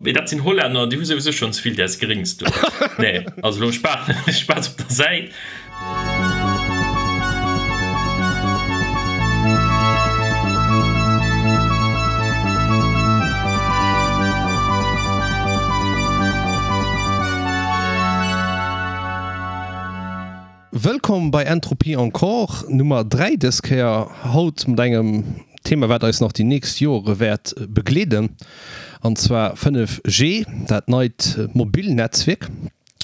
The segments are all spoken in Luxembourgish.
Mee dat sinn Hollänner, déi hu souwisou schonn ze vill däers Gréngs do. Nee, also elo Spaass op der Säit. Wëllkomm bei Entropie Encore, Nummer 3 dës Kéier. Haut mat engem Thema wat eis nach déi nächst Joere wäert begleeden, an zwar 5G, dat neit Mobilnetzwierk.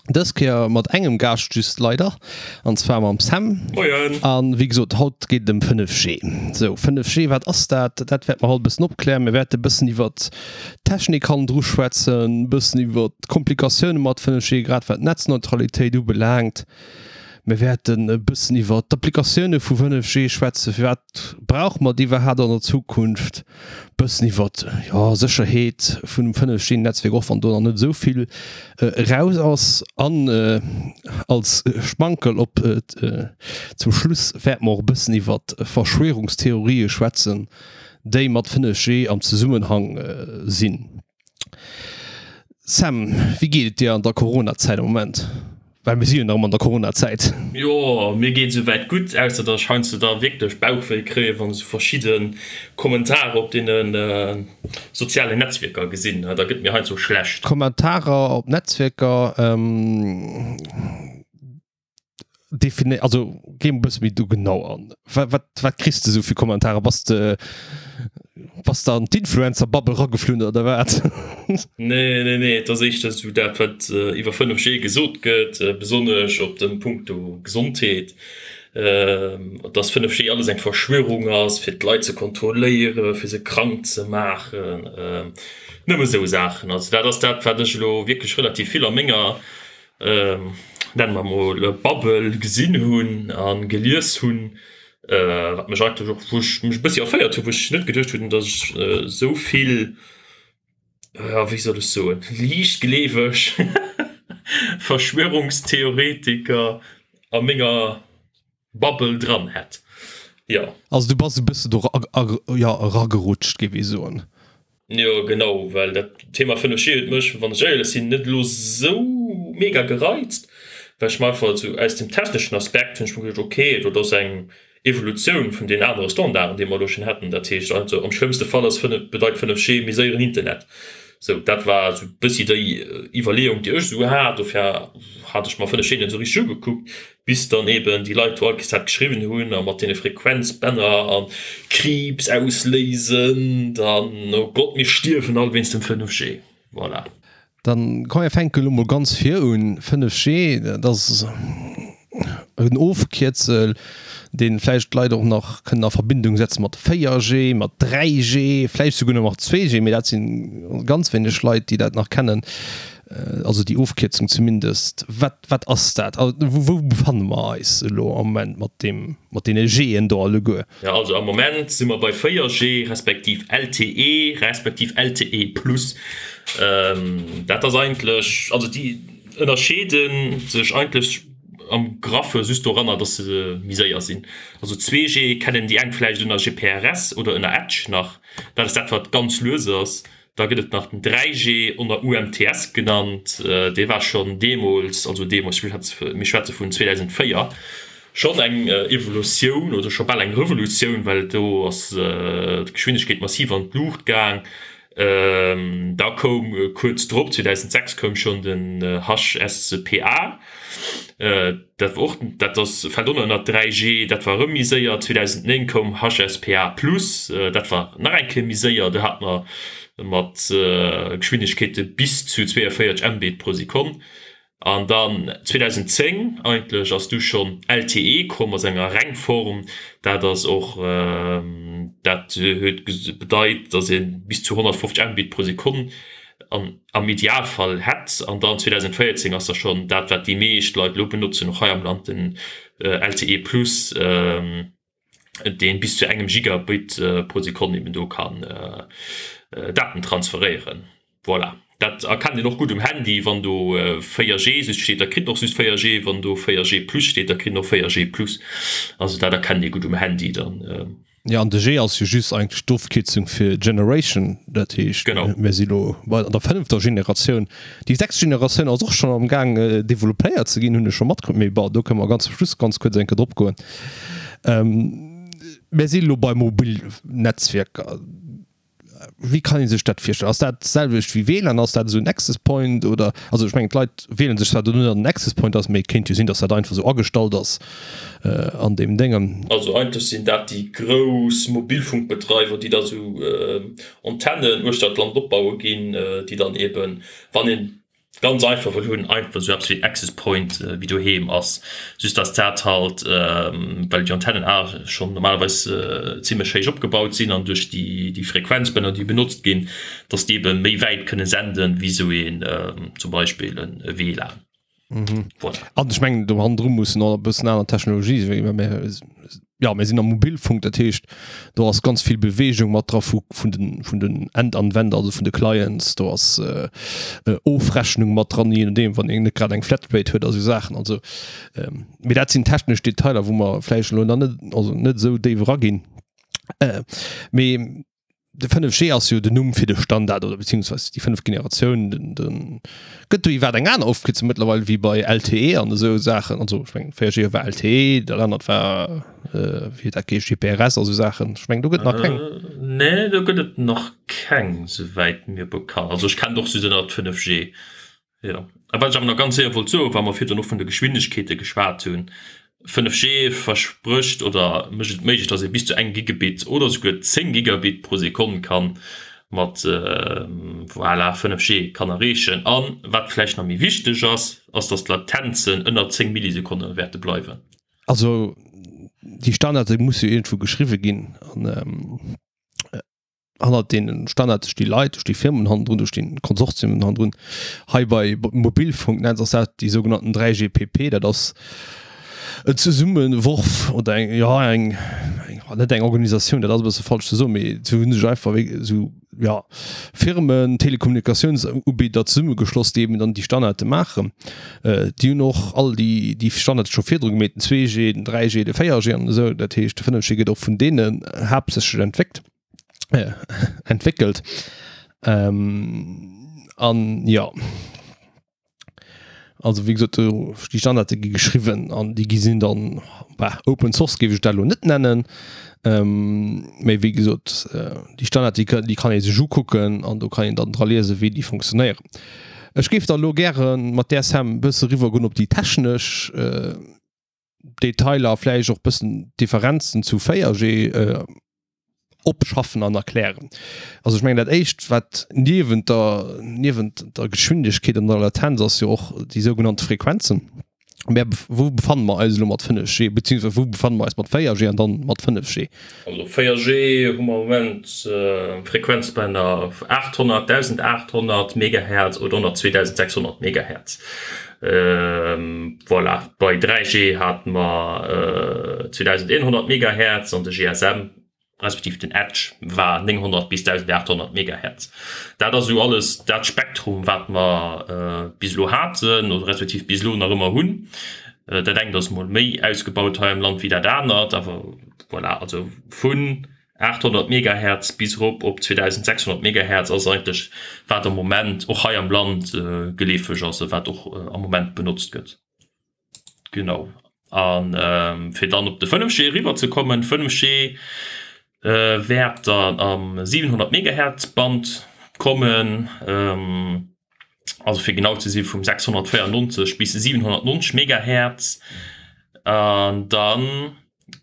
Dës Kéier mat engem Gaascht just leider, an zwar mam Sam. Moien! An wéi gesot, haut geet et ëm 5G. Sou, 5G, wat ass dat? Dat wäerte mer haut e bëssen opklären. Mir wäerte e bëssen iwwert d'Technik hannendru schwätzen, e bëssen iwwert d'Komplikatioune mat 5G, grad wat d'Netzneutralitéit ubelaangt. Mir wäerten e bëssen iwwer d'Applikatioune vu 5G schwätzen, firwat brauche mer déi iwwerhaapt an der Zukunft, e bëssen iwwer, jo, Sécherheet vun dem 5G-Netzwierk, och wann do nach net esou vill eraus ass. An als Schmankerl op zum Schluss wäerte mer och e bëssen iwwer Verschwörungstheorië schwätzen, déi mat 5G am Zesummenhang sinn. Sam, wéi geet et dir an der Corona-Zäit am Moment? Well mir si jo nach ëmmer an der Corona-Zäit. Jo, mir geet esouwäit gutt, ausser datt ech heiansdo da wierklech Bauchwéi kréien, wann ech esou verschidde Kommentarer op deene sozialen Netzwierker gesinn. Da gëtt mir heiansdo schlecht. Kommentarer op Netzwierker? Defini also geh e bësse méi do genau an. Wat, wat, wat kriss de sou fir Kommentarer? Bass de bass de an d'Influencer-Bubble rageflunn oder wat? Nee, nee, nee, et ass éischter sou dat, wat iwwer 5G gesot gëtt, besonnesch op dem Punkto Gesondheet, dass 5G alles eng Verschwörung ass, fir d'Leit ze kontrolléieren, fir se krank ze maachen, nëmme sou Saachen. Also dat ass dat, wat ech elo wierklech relativ vill a menger nennen mer mol Bubble gesinn hunn a gelies hunn, wat mech eigentlech och, wou ech mech e bëssi erféiert hunn, wou ech net geduecht hunn, datt ech esou vill, jo wéi soll ech soen, liichtgleeweg Verschwörungstheoretiker a menger Bubble dran hätt, jo. Also du bass e bësse do jo eragerutscht, géif ee soen. Jo genau, well dat Thema 5G huet mech, wann ech éierlech sinn, net elo sou mega gereizt, well ech mer einfach esou aus dem techneschen Aspekt hunn ech mer geduecht, ok, dat ass eng Evolutioun vun den anere Standarden, déi mer elo schonn hätten. Dat heescht also am schlëmmste Fall ass 5, bedeit 5G méi séieren Internet. Sou, dat war esou e bëssi déi Iwwerleeung, déi ech esou hat. Dofir hat ech mer 5G net esou richteg ugekuckt. Bis dann eben déi Leit do all Kéiers dat geschriwwen hunn a mat deene Frequenzbänner a Kriibs ausléisend an oh Gott mir stierwen all wéinst dem 5G. Voilà. Dann komm mir fänke lo mol ganz vir un. 5G, dat ass en Ofkierzel, dee vläicht d'Leit och nach kënnen a Verbindung setze mat 4G, mat 3G, vläicht souguer nach mat 2G, mee dat si ganz wéineg Leit, déi dat nach kennen. Also déi Ofkierzung zumindest. Wat, wat ass dat? Wou befanne mer eis elo am Moment mat deem, mat deene G'en do alleguer? Jo, also am Moment si mer bei 4G respektiv LTE respektiv LTE plus. Dat ass eigentlech, also déi ënnerscheede sech eigentlech am Graffe just doranner, dass se méi séier sinn. Also 2G kennen déi eng vläicht ënner GPRS oder ënner Edge nach. Dat ass dat, wat ganz lues ass. Da gëtt et nach den 3G, ënner UMTS genannt. Dee war schonn deemools, also deemools, mir schwätze vun 2004, schonn eng Evolutioun oder scho bal eng Revolutioun, well do ass d'Geschwindegkeet massiv an d'Luucht gaang. Da koum kuerz drop, 2006, koum schonn den HSPA. Dat war och, dat ass, fält och nach ënnert 3G, dat war erëm méi séier. 2009 koum HSPA plus, dat war nach eng Kéier méi séier, do hate mer mat Geschwindegkeete bis zu 42 Mbit pro Sekonn. An dann 2010 eigentlech ass du schonn LTE komm a senger Rengform. Dat ass och, dat huet bedeit, datt ee bis zu 150 Mbit pro Sekonn an am Idealfall hätt. An dann 2014 ass da schonn dat, wat déi meescht Leit elo benotzen, och hei am Land, den LTE Plus, dee bis zu engem Gigabit pro Sekonn eben do kann Daten transferéieren. Voilà, dat erkennt een och gutt um Handy, wann do 4G just steet, da kritt en och just 4G, wann do 4G Plus steet, da kritt en och 4G Plus. Also dat erkennt ee gutt um Handy dann. Jo, an de G ass jo just eigentlech d'Ofkierzung fir Generation, dat heescht, mir si lo bei der fënnefter Generatioun. Déi sechst Generatioun ass och schonn am Gaang developpéiert ze ginn, hunn ech scho matkritt, mee bon, do kënne mer ganz zum Schluss ganz kuerz eng Kéier drop goen. Mir si lo bei Mobilnetzwierker. Wéi kann ee sech dat virstellen? Ass dat d'selwecht wéi WLAN? Ass dat esou en Access Point oder, also ech mengen d'Leit wielen sech zwar do net an den Access Point ass, mee et kéint jo sinn, datt dat einfach esou agestallt ass an deem Déngen. Also eigentlech sinn dat déi grouss Mobilfunkbedreiwer, déi da sou Antennen uechter d'Land opbaue ginn, déi dann eben, wann een Ganz einfach wëll hunn, einfach esou eppes wéi Access Point wéi doheem ass, just dass dat halt, well déi Antennen a schonn normalerweis zimlech héich opgebaut sinn an duerch déi Frequenzbänner déi benotzt ginn, dass déi ebe méi wäit kënne senden wéi esou een zum Beispill e WLAN. Voilà. An ech mengen do hannendru mussen och e bëssen aner Technologie sinn, well mir jo mir sinn am Mobilfunk, dat heescht do ass ganz vill Beweegung mat dra vu vun den vun den Endanwender, also vun de Clients, do ass Ofrechnung mat dran, je nodeem wann een net grad eng Flatrate huet a sou Saachen. Also mee dat sinn technesch Detailer, wou mer vläicht elo nach net also net esou déif eraginn. Mee De 5G ass jo den Numm fir de Standard oder beziehungsweise déi fënneft Generatioun. Den, den gëtt do iwwer eng aner Ofkierzung mëttlerweil wéi bei LTE an esou Saachen. Also ech mengen 4G war LTE, dat anert war äh, wéi huet dat geheescht, GPRS a sou Saachen. Ech mengen do gëtt nach keng. Äh, nee, do gëtt et nach keng, souwäit mir bekannt. Also ech kennen och just ënnert 5G. Jo, a wat ech awer nach ganz séier wollt soen, wa mer virdrun och vun de Geschwindegkeete geschwat hunn, 5G versprécht oder mécht et méiglech, dass ee bis zu engem Gigabit oder souguer 10 Gigabit pro Sekonn ka mat, voilà, 5G kann erreechen. A wat vläicht nach méi wichteg ass, ass, dass d'Latenzen ënner 10 Millisekonne wäerte bleiwen. Also déi Standarde musse jo iergendwou geschriwwe ginn an. Hannert deenen Standarde sti Leit, do sti Firmen hannendrun, do stinn Konsortiumen hannendrun. Hei bei Mobilfunknetz ass dat déi sougenannten 3GPP, dat ass en Zesummeworf oder eng, jo eng, eng, net eng Organisatioun, dat ass e bësse falsch ze soen, mee se hu sech einfach wéi esou, jo, Firmen, Telekommunikatiounsubieder zesummegeschloss, déi eben dann déi Standarde maachen. Déi hunn och all déi, déi Standarde scho virdru gemeet, den 2G, den 3G, de 4G an esou. Dat heescht, de 5G gëtt och vun deenen haaptsächlech entwéckt. Äh, entwéckelt. Ähm, an ja. Also wéi gesot, do déi Standarde gi geschriwwen an déi gi sinn dann bah, Open Source géif ech dat elo net nennen. Ähm, méi wéi gesot, äh, déi Standard déi, déi kann ee sech ukucken an do kann een dann dra liese wéi déi funktionéieren. Ech géif da lo gäre mat där Sam bësse riwwer goen op déi technesch äh, Detailer, vläicht och bëssen d'Differenzen zu 4G opschaffen an erklären. Also ech mengen dat éischt wat niewent der niewent der Geschwindegkeet an der Latenz ass jo och déi sougenannte Frequenzen. Mä wou befanne mer eis elo mat 5G, beziehungsweise wou befanne mer eis mat 4G an dann mat 5G? Also 4G hu mer am Moment Frequenzbänner 800, 1800 Megahertz oder ënner 2600 Megahertz. Voilà, bei 3G hate mer 2100 Megahertz an de GSM, respektiv den Edge war 900 bis 1800 Megahertz. Dat ass esou alles dat Spektrum, wat mer bis elo haten oder respektiv bis elo nach ëmmer hunn. Dat engt ass mol méi ausgebaut hei am Land wéi dat anert, awer voilà, also vun 800 Megahertz bis erop op 2600 Megahertz ass eigentlech wat am Moment och hei am Land geleefeg ass a wat och am Moment benotzt gëtt. Genau. A fir dann op de 5G eriwwer ze kommen, 5G wäert dann am 700 Megahertz Band kommen, also fir genau ze si vum 694 bis 790 Megahertz. An dann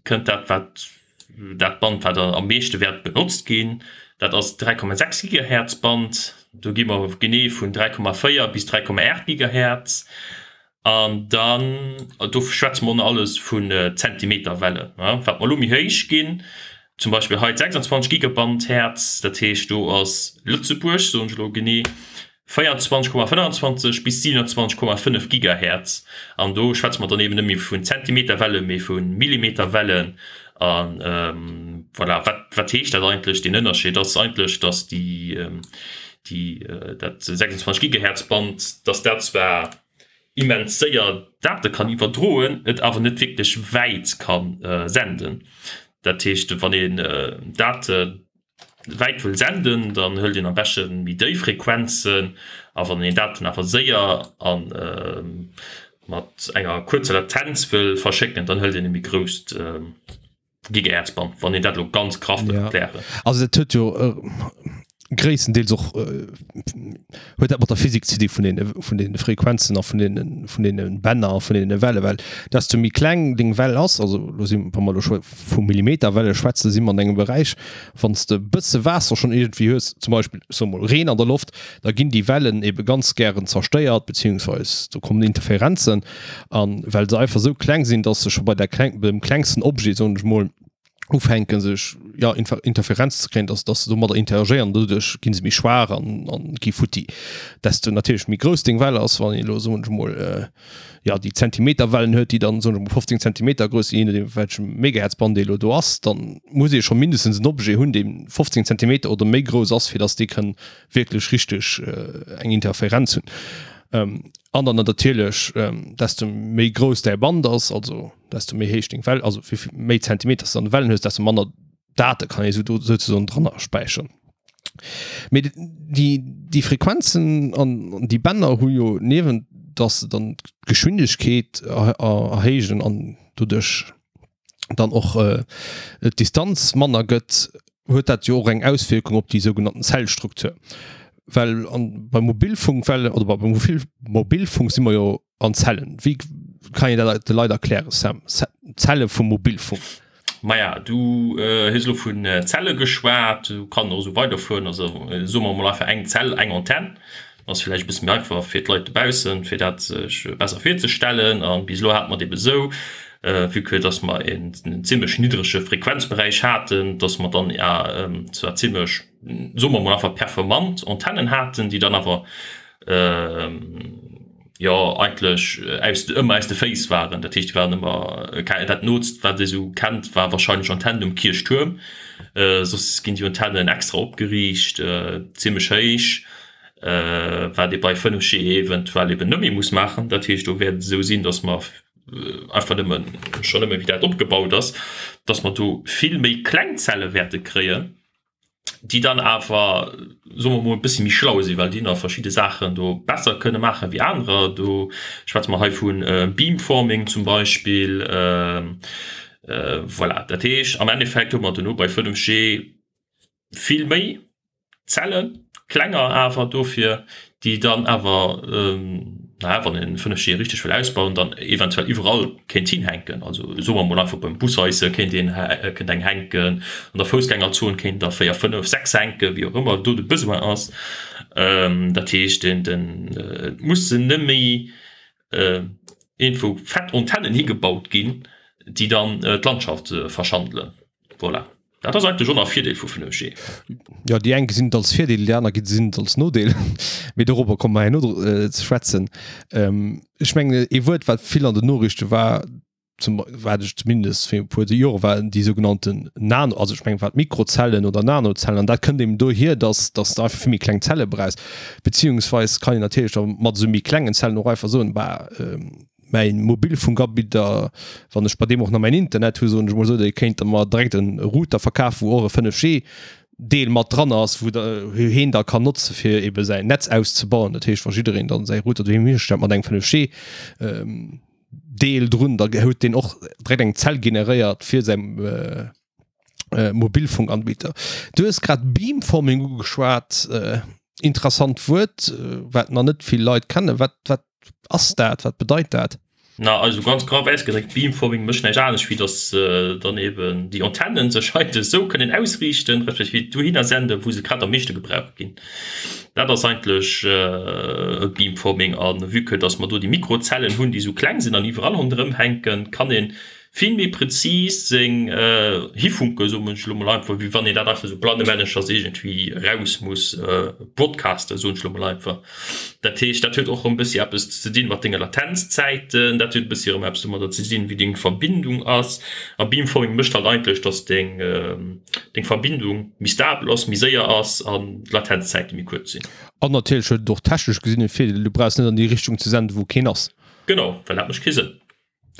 kënnt dat wat dat Band wat am meeschte wäert benotzt ginn, dat ass d'3,6 Gigahertz Band. Do gi mer genee vun 3,4 bis 3,8 Gigahertz. An dann, do schwätze mer alles vun Zentimeterwellen, wat mer elo méi héich ginn, zum Beispill hei d'26 Gigaband Hertz, dat heescht do ass Lëtzebuerg, soen ech elo genee, 24,25 bis 27,5 Gigahertz. An do schwätze mer dann eben net méi vun Zentimeterwellen, mee vu Millimeterwellen. A voilà, wat, wat heescht dat eigentlech, deen Ënnerscheed ass eigentlech, datt déi, déi, dat 26 Gigahertz Band, datt dat zwar immens séier Date kann iwwerdroen, et awer net wierklech wäit ka senden. Dat heescht, wann een Date wäit wëll senden, dann hëlt een am beschte méi déif Frequenzen a wann een Daten awer séier a mat enger kuerzer Latenz wëll verschécken, dann hëlt een e méi grousst Gigahertzband, wann een dat elo ganz graff wëll erklären. Also dat huet jo gréisstendeels och huet dat mat der Physik ze di vun den vun den Frequenzen a vun den vun den Bänner a vun den Welle, well desto méi kleng deng Well ass, also lo si wa mer lo scho vu Millimeterwelle schwätzen, si mer an engem Beräich, wann s de e bësse Waasser schonn iergendwéi hues, zum Beispill ech soe mol Reen an der Loft, da ginn déi Wellen ebe ganz gären zerstéiert, beziehungsweis do kommen Interferenzen an well se einfach esou kleng sinn, dass se scho bei der kleng beim klengsten Objet soen ech mol ufänken sech ja Interferenz ze kréien, dass dass se domadder interagéieren, doduerch ginn se méi schwaach an an gi futti. Desto natierlech méi grouss deng Well ass, wann een elo soen ech mol ja déi Zentimeterwellen huet, déi dann soen ech mol 15 Zentimeter grouss sinn, je nodeem welchem Megahertzband ee elo do ass, dann muss ee scho mindestens en Objet hunn, dee 15 Zentimeter oder méi grouss ass, fir dass dee kënn wierklech richteg eng Interferenz hunn. An dann natierlech desto méi grouss däi Band ass, also desto méi héich deng Well, also wéi méi Zentimeter s de an de Wellen hues, desto manner Date kann ee souzesoen dranner späicheren. Mee déi, déi Frequenzen an déi Bänner hu jo niewent dass se dann d'Geschwindegkeet erhéijen an doduerch dann och d'Distanz manner gëtt, huet dat jo och eng Auswierkung op déi sougenannten Zellstruktur. Well an beim Mobilfunkwellen oder beim Mobilfunk si mer jo An Zellen, wéi kann een dat de Leit erklären, Sam? Zelle vum Mobilfunk. Maja, du hues elo vun Zelle geschwat, du kann och esou weiderfueren. Also soe mer emol einfach eng Zell, eng Antenn, ass villäicht e bësse méi einfach fir d'Leit dobaussen, fir dat sech besser virzestellen. A bis elo hate mer et ebe esou, vue que dass mer en zimmlech niddrege Frequenzberäich haten, dass mer dann zwar zimmlech, soe mer emol einfach performant Antennen haten, déi dann awer jo eigentlech aus ëmmer aus de Féiss waren. Dat heescht, déi waren ëmmer dat Nootst, wat ee sou kennt, war wahrscheinlech Antennen um Kierchtuerm. Soss ginn déi Antennen extra opgeriicht, zimmlech héich, wat ee bei 5G eventuell eben net méi muss maachen. Dat heescht, do wäert et esou sinn, datt mer einfach nëmmen, schonn nëmme wéi dat opgebaut ass, datt mer do vill méi kleng Zelle wäerte kréien. déi dann awer, soe mer mol, e bëssi méi schlau sinn, well déi nach verschidde Saachen do besser kënne maache wéi anerer. Do schwätze mer hei vu Beamforming zum Beispill. Voilà, dat heescht am Endeffekt hu mer duerno bei 5G vill méi Zellen, klenger awer dofir, déi dann awer, naja, wann een 5G richteg wëll ausbauen, dann eventuell iwwerall kéint hinhänken. Also soe mer mol einfach beim Bushaisse kéint een, kéint eng hänken, an der Foussgängerzon kéint der 4, 5, 6 hänken, wéi och ëmmer do de Besoin ass. Dat heescht, den, den, et mussen net méi iergendwou fett Antennen higebaut ginn, déi dann d'Landschaft verschandelen. Voilà. Dat ass eigentlech och nach e Virdeel vu 5G. Jo, déi eng gesinn et als Virdeel, déi aner gesinn et als Nodeel. Mee dorobber komme mer herno ze schwätzen. Ech mengen, ee Wuert, wat vill an den Noriichte war, zum, wat ech zumindest fir e puer Jore war, déi sougenannten Nano, also ech mengen, wat Mikrozellen oder Nanozellen, an dat kënnt eben dohier, dass, dass de einfach vill méi kleng Zelle brauchs. Beziehungsweis kann een natierlech da mat esou méi klengen Zellen och einfach soen, bah, mäin Mobilfunkabidder, wann ech bei deem och nach mäin Internet hu, soen ech mol esou, dee kéint der mer direkt en Router verkafen, wou och e 5G Deel mat dran ass, wou der heen da kann notze fir ebe säin Netz auszebauen. Dat heescht, wa jiddereen dann säi Router doheem histellt mat engem 5G Deel drun, da huet deen och direkt eng Zell generéiert fir säi Mobilfunkanbieter. Du hues grad Beamforming ugeschwat, interessant Wuert, wat nach net vill Leit kennen. Wat, wat ass dat? Wat bedeit dat? Na, also ganz graff ausgedréckt, Beamforming mécht näischt anescht, wéi dass dann eben déi Antennen sech heite esou kënnen ausriichten, respektiv dohinner senden, wou se grad am meeschte gebraucht ginn. Dat ass eigentlech Beamforming. A vue que dass mer do déi Mikrozellen hunn, déi esou kleng sinn an iwwerall ronderëm hänken, kann een vill méi prezis seng Hifunke, soen ech elo mol einfach, wéi wann een dat einfach esou blannemänneschers iergendwéi eraus muss broadcasten, soen ech elo mol einfach. Dat heescht, dat huet och erëm e bëssi eppes ze dinn mat denge Latenzzäiten, dat huet e bëssi erëm eppes domadder ze dinn, wéi deng Verbindung ass. A Beamforming mécht halt eigentlech, dass deng deng Verbindung méi stabel ass, méi séier ass an d'Latenzzäite méi kuerz sinn. An natierlech huet et och technesch gesinn e Virdeel, du brauchs net an déi Richtung ze senden, wou keen ass. Genau, well dat mécht kee Sënn.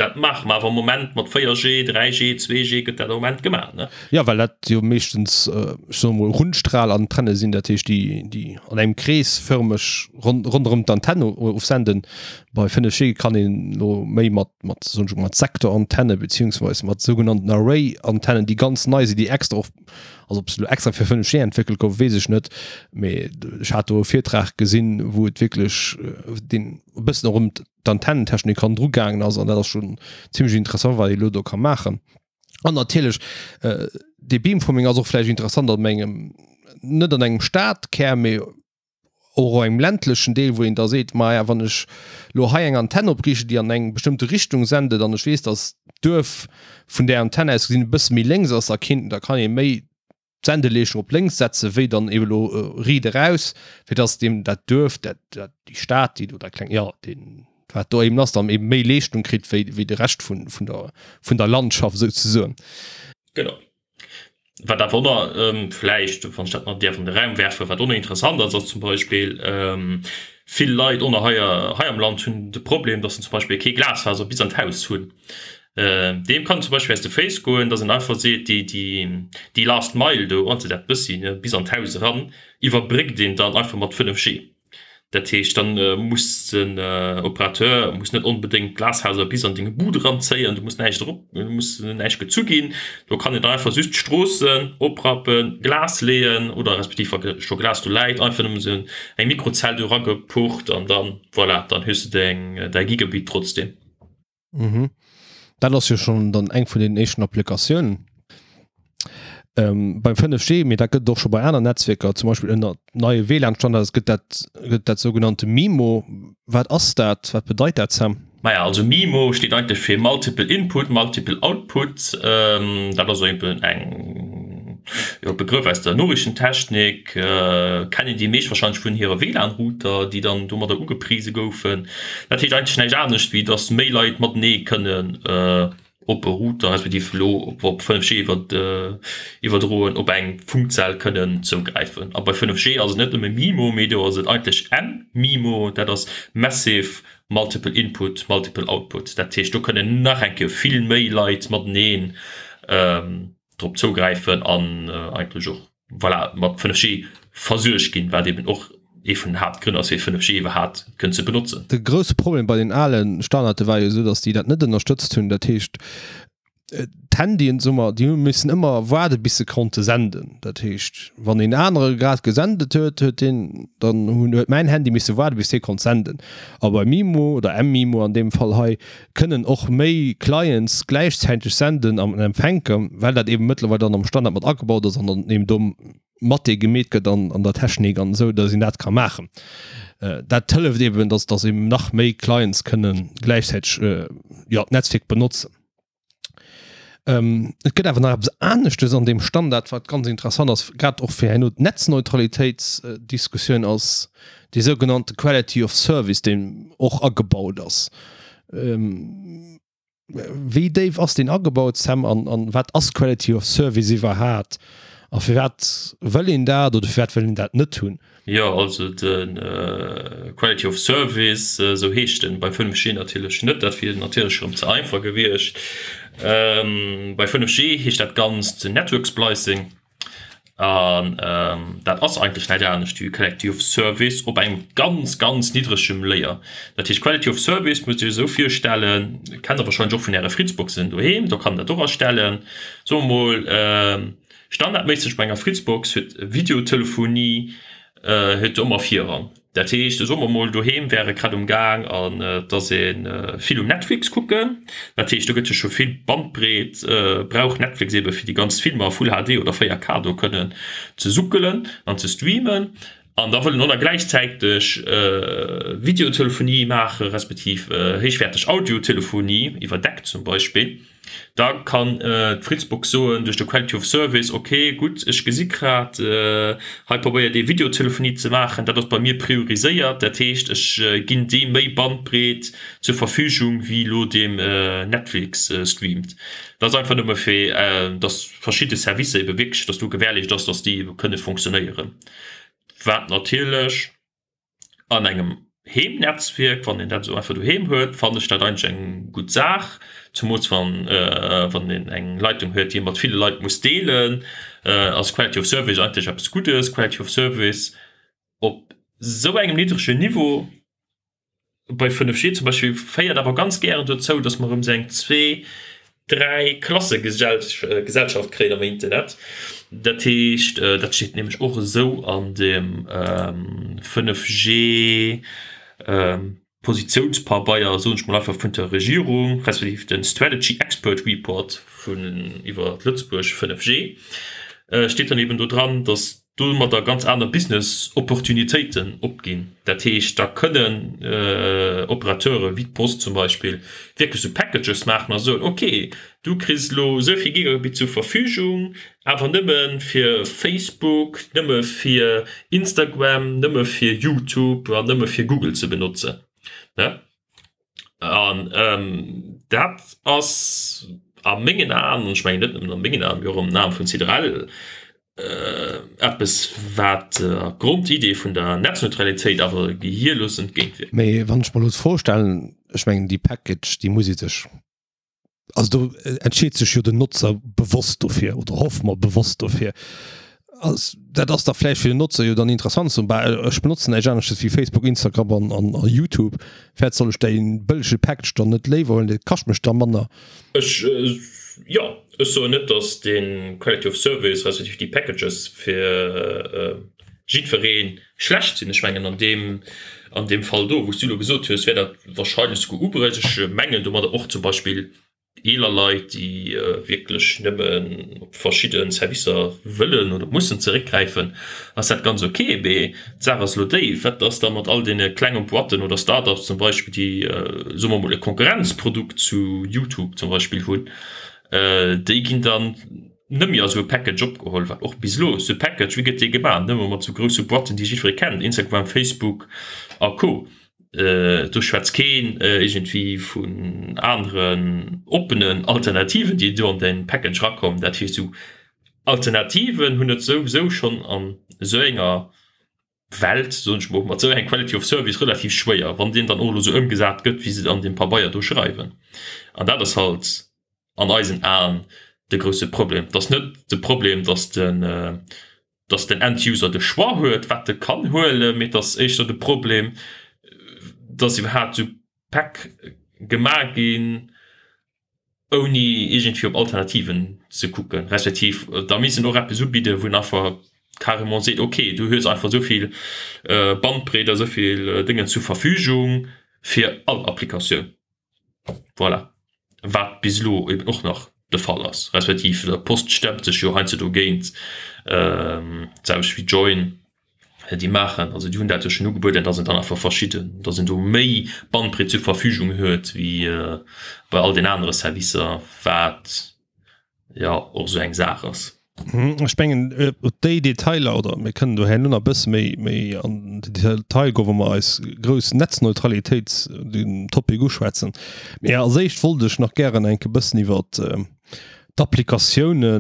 Dat maache mer awer am Moment mat 4G, 3G, 2G gëtt dat am Moment gemaach, ne? Jo, well dat jo meeschtens, ech soe mol, Rundstrahlantenne sinn, dat heescht, déi, déi an engem Krees fërmeg ronderëm d'Antenn ofsenden. Bei 5G kann een elo méi mat, mat, soen ech mol, mat Sektorantenne beziehungsweise mat sougenannten Array-Antennen, déi ganz nei sinn, déi extra och, also ob se elo extra fir 5G entwéckelt goufen, weess ech net, mee ech hat do e Virtrag gesinn, wou et wierklech deen e bëssen och ëm d'Antennentechnik hannendru gaangen ass an dat ass schon zimmlech interessant wat ee lo do ka maachen. An natierlech äh, dee Beamforming ass och vläicht interessant an engem net an engem Stadkär, mee och engem ländlechen Deel, wou een da seet, maja wann ech lo hei eng Antenn opriichten, déi an eng bestëmmte Richtung sendet an ech weess, datt d'Duerf vun där Antenn aus gesinn e bësse méi lénks ass, da kinnt da kann ee méi d'Sendeleeschung op lénks setze wéi dann eben elo riit eraus, fir dass deem dat Duerf, dat, dat, déi Stad, déi do dat kleng, jo, deen, wat do eben ass, dann eben méi Leeschtung kritt wéi, wéi de Rescht vun, vun der, vun der Landschaft souzesoen. Genau. Wat awer och nach vläicht, wann ech dat nach däerf an de Raum werfen, wat och nach interessant ass, ass zum Beispill, vill Leit och nach hei, hei am Land hunn de Problem, dass se zum Beispill kee Glasfaser bis an d'Haus hunn. Deem kann zum Beispill aus de Féiss goen, dass en einfach seet, déi, déi, déi last mile do, also dat bëssi, ne, bis an d'Haus eran, iwwerbréckt een dann einfach mat 5G. Dat heescht, dann muss den Operateur muss net onbedéngt d'Glashauser bis an deng Bud eranzéien, do muss näischt erop, do muss näischt gezu ginn. Do kann een dann einfach just d'Stroossen oprappen, Glas leeën oder respektiv wa scho Glas do läit, einfach nëmmen esou eng Mikrozell do eragepucht an dann, voilà, dann hues de deng, däi Gigabit trotzdem. Mhm. Dat ass jo schon dann eng vun den éischten Applikatiounen. Ähm, beim 5G, mee dat gëtt et och scho bei aner Netzwierker, zum Beispill ënner neie WLAN-Standards gëtt dat, gëtt dat sougenannte MIMO. Wat ass dat? Wat bedeit dat, Sam? Maja, also MIMO steet eigentlech fir Multiple Input, Multiple Output. Ähm, dat ass eben eng, jo, Begrëff aus der Noriichtentechnik. Kennen déi meescht wahrscheinlech vun hire WLAN-Router, déi dann domadder ugeprise goufen. Dat heescht eigentlech näischt anescht, wéi dass méi Leit matenee kënnen op e Router, respektiv elo op 5G iwwerdroen, op eng Funkzell kënnen zougräifen. A bei 5G ass et net nëmme MIMO, mee do ass et eigentlech mMIMO, dat ass Massive Multiple Input, Multiple Output. Dat heescht, do kënnen nach eng Kéier vill méi Leit mateneen drop zougräifen an eigentlech och voilà, mat 5G versuergt ginn, wat eben och ee vun den Haaptgrënn ass, fir 5G iwwerhaapt kënnen ze benotzen. De grousse Problem bei den ale Standarde war jo esou, datt déi dat net ënnerstëtzt hunn. Dat heescht, d'Handyen, soe mer, déi hu missen ëmmer waarde bis se konnte senden. Dat heescht, wann een anere grad gesendet huet, huet deen dann hunn huet mäin Handy misse waarde bis dee konnt senden. A bei MIMO oder mMIMO an deem Fall hei kënnen och méi Clients gläichzäiteg senden an empfänken, well dat eben mëttlerweil dann am Standard mat agebaut ass an dann eben do mat dee gemeet gëtt an an der Technik an esou, datt een dat ka maachen. Dat hëlleft eben, datt datt eben nach méi Clients kënnen gläichzäiteg jo d'Netzwierk benotzen. Et gëtt awer nach eppes aneschtes an deem Standard, wat ganz interessant ass, grad och fir herno d'Netzneutralitéitsdiskussioun, ass dee sougenannte Quality of Service, deen och agebaut ass. Wéi déif ass deen agebaut, Sam, an wat ass Quality of Service iwwerhaat? A firwat wëll een dat oder firwat wëll een dat net hunn? Jo, also de Quality of Service, esou heescht en bei 5G natierlech net, dat wier natierlech erëm ze einfach gewiescht. Bei 5G heescht dat Ganzt Network Splicing an dat ass eigentlech näischt anescht wéi Quality of Service op engem ganz, ganz niddregem Layer. Dat heescht Quality of Service musst Dir Iech esou virstellen, kennt Der warscheinlech och vun Äre Fritzboxen doheem, do kann een dat och astellen, soe mer mol, Standardméisseg bei enger Fritzbox huet Videotelefonie huet ëmmer Virrang. Dat heescht, soe mer mol doheem wäre grad um Gaang an et ass ee vill um Netflix kucken. Dat heescht, do gëtt jo scho vill Bandbreet, brauch Netflix ebe fir déi ganz Filmer a Full HD oder 4K do kënnen ze suckelen an ze streamen. An da wëll en och nach gläichzäiteg Videotelefonie maache respektiv héichwäerteg Audiotelefonie iwwer Deck zum Beispill. Da kann d'Fritzbox soen, duerch de Quality of Service, ok, gutt, ech gesi grad, hei probéiert ee Videotelefonie ze maachen, dat ass bei mir prioriséiert, dat heescht, ech ginn deem méi Bandbreet zur Verfügung wéi elo deem Netflix streamt. Dat ass einfach nëmme fir, datt verschidde Servicer ebe wierklech, datt do gewährleescht ass, datt déi ebe kënne fonctionnéieren, wat natierlech an engem. Heemnetzwierk, wann een dat esou einfach doheem huet, fannen ech dat eigentlech eng gutt Saach, zumools wann wann een eng Leitung huet, déi ee mat ville Leit muss deelen, ass Quality of Service eigentlech eppes Guddes. Quality of Service op esou engem niddregen Niveau bei 5G zum Beispill féiert awer ganz gären dozou, dass mer erëm esou eng zwee-, dräi Klasse-Gesellschaft kréien am Internet. Dat heescht, dat steet nämlech och esou an dem 5G Positiounspabeier, soen ech mol einfach, vun der Regierung, respektiv de Strategy Expert Report vun iwwer Lëtzebuerg 5G, steet dann eben do dran, dass domadder ganz aner Business Opportunitéiten opginn. Dat heescht, da kënnen Operateure wéi d'Post zum Beispill wierklech sou Packages maachen a soen, ok, du kriss elo esou vill Gigabit zur Verfügung, awer nëmme fir Facebook, nëmme fir Instagram, nëmme fir YouTube an nëmme fir Google ze benotzen. An dat ass a mengen Aen, an ech mengen net nëmmen a mengen Aen, mee och an den Aen vun CDRL, eppes, wat der Grondidee vun der Netzneutralitéit awer gehierlos entgéintwierkt. Mee wann ech mer elo d'Fro stellen, ech mengen déi Package, déi muss ee sech, also do entscheet sech jo den Notzer bewosst dofir, oder hoffe mer bewosst dofir. Ass, dat ass da vläicht fir den Notzer jo dann interessant, ze soen, bah, ech benotzen näischt anesches wéi Facebook, Instagram an, an, a YouTube, firwat soll ech dee bëllege Package dann net léiwer huelen, dee kascht mech da manner. Ech, jo, ech soen net, datt dee Quality of Service respektiv déi Packages fir jiddweree schlecht sinn. Ech mengen an deem, an deem Fall do, wou s du elo gesot hues, wär dat wahrscheinlech souguer ubruecht. Ech mengen domadder och zum Beispill eeler Leit, déi wierklech nëmmen op verschidde Servicer wëllen oder mussen zeréckgräifen, ass dat ganz ok. Mee d'Saach ass elo déi, Wat ass da mat all deene klenge Boîten oder Start-ups zum Beispill, déi, soe mer emol, e Konkurrenzprodukt zu YouTube zum Beispill hunn? Déi ginn dann net méi a sou e Package opgeholl, wat och bis elo sou e Package, wéi gëtt dee gemaach? Nëmme mat sou grousse Boîten, déi jiddweree kennt, Instagram, Facebook a Co. Do schwätzt keen iergendwéi vun aneren oppenen Alternativen, déi do an dee Package erakommen. Dat heescht, esou Alternativen hunn et souwisou schonn an esou enger Welt, soen ech mol, mat esou enger Quality of Service relativ schwéier, wann deen dann och elo esou ëmgesat gëtt, wéi se et an deem Pabeier do schreiwen. An dat ass halt an eisen Aen de grousse Problem. Et ass net de Problem, datt den, dass den End-User de Choix huet, wat e kann huelen, mee et ass éischter de Problem, dass iwwerhaapt esou Päck gemaach ginn, ouni iergendwéi op Alternativen ze kucken, respektiv da misst en och eppes ubidden, wou en einfach carrément seet, okay, du hues einfach esou vill Bandbreet a esou vill Déngen zur Verfügung fir all Applikatioun. Voilà. Wat bis elo eben och nach de Fall ass, respektiv der Post stemmt sech jo heiansdo dogéint, d'selwecht wéi Join déi maachen, also déi hunn dat jo schonn ugebueden, datt een dann einfach verschidden, datt een do méi Bandbreet zur Verfügung huet wéi bei all den anere Servicer, wat jo och esou eng Saach ass. Ech mengen op déi Detailer, oder mir kënnen do herno nach e bësse méi méi an den Detail goen, wa mer eis grouss Netzneutralitéits den Topic uschwätzen. Mee als éischt wollt ech nach gären enk e bëssen iwwer d'Applikatioune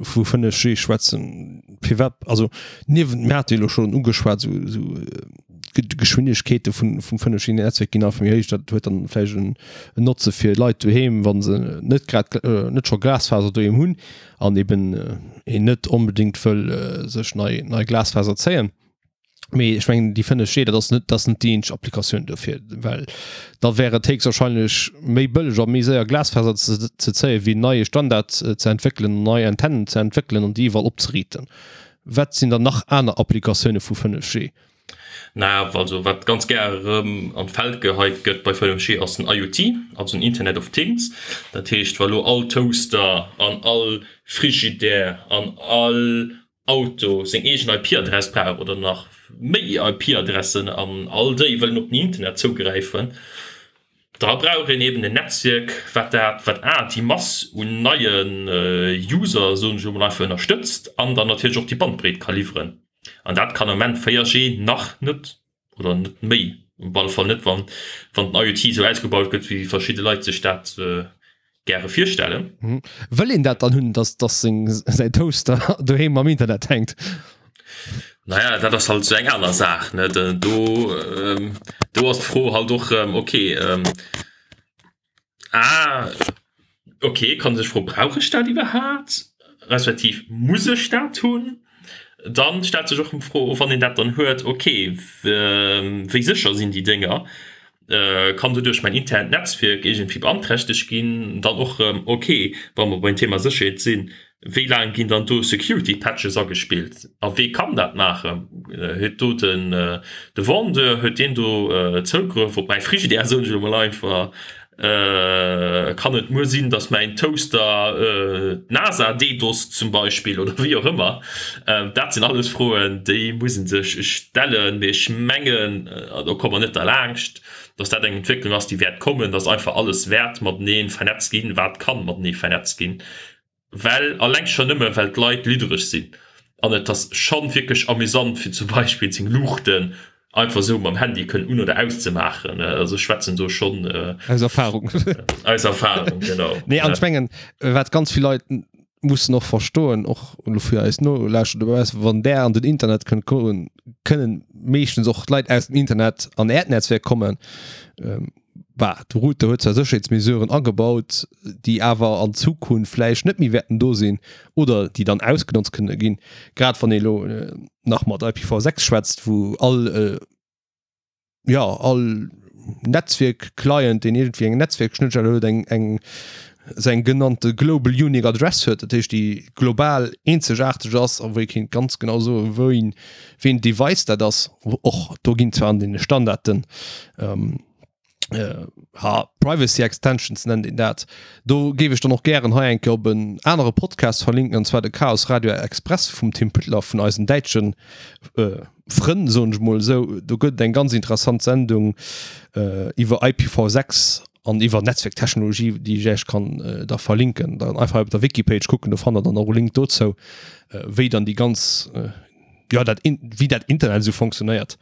vu 5G schwätzen. Firwat, also niewent, mir hate jo elo schonn ugeschwat, esou esou Geschwindegkeete vun vum 5G-Netzwerk ginn einfach méi héich. Dat huet dann vläicht en Notze fir Leit doheem, wa se net grad net scho Glasfaser doheem hunn an eben een net onbedéngt wëll sech nei nei Glasfaser zéien. Mee ech mengen déi 5G, dat ass net dat ass net déi eenzeg Applikatioun dofir, well da wär et héchstwahrscheinlech méi bëlleg a méi séier Glasfaser ze ze zéien, wéi en neie Standard ze entwéckelen, nei Antennen ze entwéckelen an déi iwwerall opzeriiten. Wat sinn dann nach aner Applikatioune vu 5G? Na, also wat ganz gär erëm an d'Feld geheit gëtt bei 5G ass den IoT, also den Internet of Things. Dat heescht, wa lo all Toaster an all Frigidaire an all Auto seng eegen IP-Adress brauch oder nach méi IP-Adressen an all déi wëllen op den Internet zougräifen, da brauch een eben en Netzwierk, wat dat, wat a déi Mass un neie User, soen ech elo mol einfach, ënnerstëtzt an dann natierlech och déi Bandbreet ka liwweren. An dat kann am Moment 4G nach net oder net méi, op alle Fall net, wann wann den IoT esou ausgebaut gëtt, wéi verschidde Leit sech dat gäre virstellen. Wëll een dat dann hunn, dass dass seng säin Toaster doheem am Internet hänkt? Naja, dat ass halt esou eng aner Saach, ne? Do, do ass d'Fro halt och erëm, okay, ah, okay, kann sech froen, brauch ech dat iwwerhaapt, respektiv muss ech dat hunn? Dann stellt sech och d'Fro, wann een dat dann huet, okay, wéi sécher sinn déi Dénger? Kann doduerch mäin internt Netzwierk iergendwéi beanträchtegt ginn? Dann och erëm, okay, wa mer beim Thema Sécherheet sinn, Wéi laang ginn dann do Security Patches agespillt a wee kann dat maachen? Huet do den de Vendeur, huet deen do Zougrëff op mäi Frigidaire, soen ech elo mol einfach? Kann et muer sinn, datt mäin Toaster d'NASA DDoSt zum Beispill oder wéi och ëmmer? Dat sinn alles Froen, déi muss ee sech stellen. Mee ech mengen, do komme mer net derlaanscht, datt dat eng Entwécklung ass, déi wäert kommen, datt einfach alles wäert matenee vernetzt ginn, wat kann matenee vernetzt ginn. Well, alleng schonn nëmme well d'Leit liddereg sinn an et ass schonn wierklech amüsant fir zum Beispill seng Luuchten einfach esou mam Handy kënnen un oder auszemaachen. Also ech schwätzen do schonn Aus Erfahrung. Aus Erfahrung, genau. Nee, an ech mengen, wat ganz vill Leit mussen och verstoen, och elo fir eis Nolauschterer dobaussen, wann där an den Internet kënnt goen, kënnen meeschtens och d'Leit aus dem Internet an äert Netzwerk kommen. Bah, de Router huet zwar Sécherheetsmesuren agebaut, déi awer an Zukunft vläicht net méi wäerten do sinn oder déi dann ausgenotzt kënne ginn. Grad wann ee elo nach mat IPv6 schwätzt, wou all, jo, all Netzwierk-Client, deen iergendwéi eng Netzwierkschnëttstell huet, eng, eng, esou eng genannte Global Unique Address huet, dat heescht déi global eenzegaarteg ass a wou ee kéint ganz genau soen, wou een, wéi een Device dat ass. Och do ginn zwar an deene Standarden, ha, Privacy Extensions nennt een dat. Do géif ech dann och gären hei eng Kéier op en anere Podcast verlinken, an zwar de Chaos Radio Express vum Tim Püttler, vun eisen däitschen Frënn, soen ech mol esou. Do gëtt et eng ganz interessant Sendung iwwer IPv6 an iwwer Netzwerktechnologie, déi ech Iech kann da verlinken. Dann einfach op der Wikipage kucken, do fannt der dann och e Link dozou, wéi dann déi ganz jo dat wéi dat Internet esou fonctionnéiert.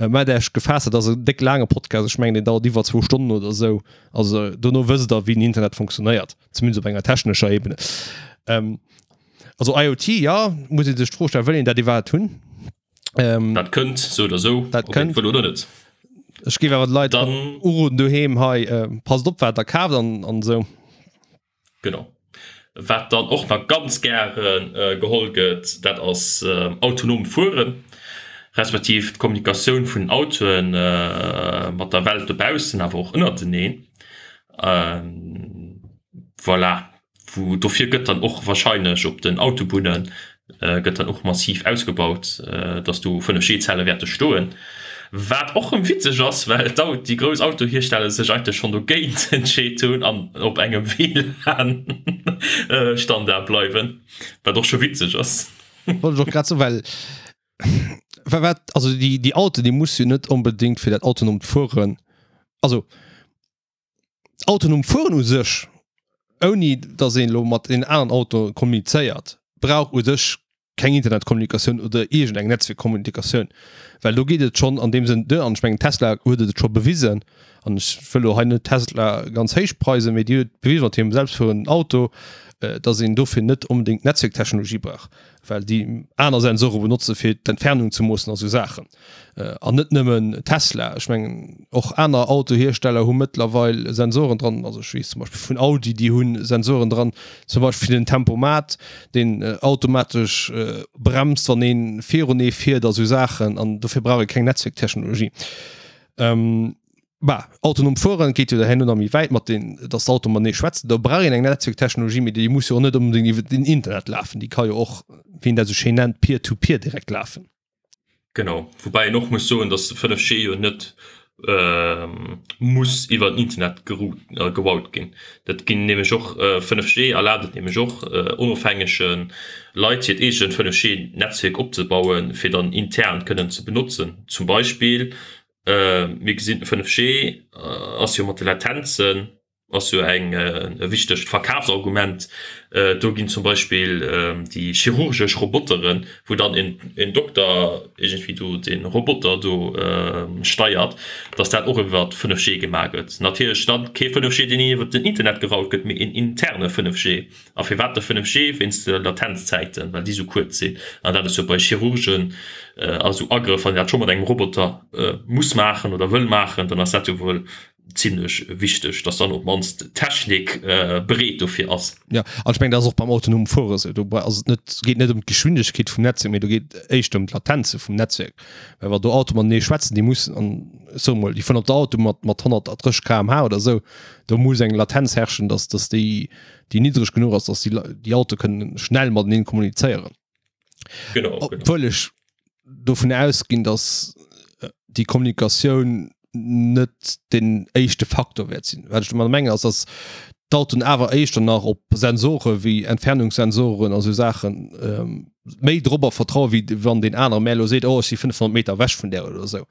Maacht Äech gefaasst, dat ass en déck laange Podcast, ech mengen deen dauert iwwer zwou Stonnen oder esou. Also dono wësst der wéi den Internet fonctionnéiert, zumindest op enger technescher Ebene. Also IoT, jo, muss ee sech d'Fro stellen, wëll een dat iwwerhaapt hunn? Dat kënnt sou oder sou, dat ob een kënnt. et wëll oder net. Ech géif awer de Leit Dann uroden doheem hei, passt op wat der kaaft an an esou. Genau. Wat dann och nach ganz gäre geholl gëtt, dat ass autonomt Fueren, respektiv d'Kommunikatioun vun den Autoe mat der Welt dobaussen, awer och ënnerteneen. Voilà. Wou dofir gëtt dann och wahrscheinlech op den Autobunne gëtt dann och massiv ausgebaut, dass do 5G-Zelle wäerte stoen. Wat och rëm witzeg ass, well déi grouss Autohiersteller sech eigentlech schonn dogéint entscheet hunn an op engem WLAN-Standard bleiwen, wat och scho witzeg ass. Wollt ech och grad soen, well wat, also déi, déi Autoen, déi muss jo net onbedéngt fir dat autonomt Fueren, also Autonom Fueren u sech, ouni datt een elo mat een aneren Auto kommunizéiert, brauch u sech keng Internetkommunikatioun oder iergend eng Netzwierkkommunikatioun, well do geet et schonn an deem Sënn duer. An ech mengen Tesla huet et scho bewisen, an ech wëll elo hei net Tesla ganz héich preisen, mee déi huet bewisen mat hirem selbstfuerenden Auto, datt een dofir net onbedéngt Netzwierktechnologie brauch, well déi aner Sensore benotze fir d'Entfernung ze moossen a sou Saachen. An net nëmmen Tesla, ech mengen och aner Autohiersteller hu mëttlerweil Sensoren dran. Also ech weess zum Beispill vun Audi, déi hu Sensoren dran, zum Beispill fir den Tempomat, deen automatesch bremst, wann ee virun ee fiert a sou Saachen. An dofir brauch ee keng Netzwierktechnologie. Bah, autonom fueren geet jo herno nach méi wäit mat den, dass d'Auto matenee schwätzen. Do brauch een eng Netzwierktechnologie, mee déi muss jo och net onbedéngt iwwer den Internet lafen. Déi ka jo och, wéi een dat esou schéin nennt, peer-to-peer direkt lafen. Genau, woubäi een och muss soen, datt de 5G jo net muss iwwer den Internet gerout ginn. Dat ginn nämlech och, 5G erlaabt et nämlech och onofhängege Leit hiert eegent 5G-Netzwierk opzebauen, fir dann intern kënnen ze benotzen. Zum Beispill, mir gesinn, 5G ass jo mat de Latenzen. Ass jo eng e wichtegt Verkafsargument. Do ginn zum Beispill déi chirurgesch Roboteren, wou dann een Dokter iergendwéi do de Roboter do steiert, datt dat och iwwer 5G gemaach gëtt. Natierlech dann kee 5G, deen iwwer den Internet geraut gëtt, mee een interne 5G. A firwat de 5G? Wéinst de Latenzzäiten, well déi esou kuerz sinn. An dat ass jo bei Chirurgen a sou Agrëff, wann een dat scho mat engem Roboter muss maachen oder wëll maachen, dann ass dat jo wuel zimlech wichteg, dass dann op d'mannst d'Technik bereet dofir ass. Jo, an ech mengen, dat ass och beim autonomen Fuere esou. Do ass et net, geet net ëm d'Geschwindegkeet vum Netzwierk, mee do geet éischter ëm d'Latenze vum Netzwierk. Well wa do Autoe matenee schwätzen, déi mussen, an ech soe mol, déi fueren op der Autobunn mat, mat 130 km/h oder esou, do muss eng Latenz herrschen, dass, dass déi, déi niddreg genuch ass, dass déi, déi Autoe kënnen schnell matenee kommunizéieren. Genau, genau. Obwuel ech dovun ausginn, dass déi Kommunikatioun net den éischte Faktor wäert sinn. Wat ech domadder mengen ass, dass d'Autoen awer éischter nach op Sensore wéi Entfernungssensoren a sou Saachen ähm, méi drobber vertraue wéi wann deen anere mär elo seet, oh ech si 500 Meter ewech vun där oder esou.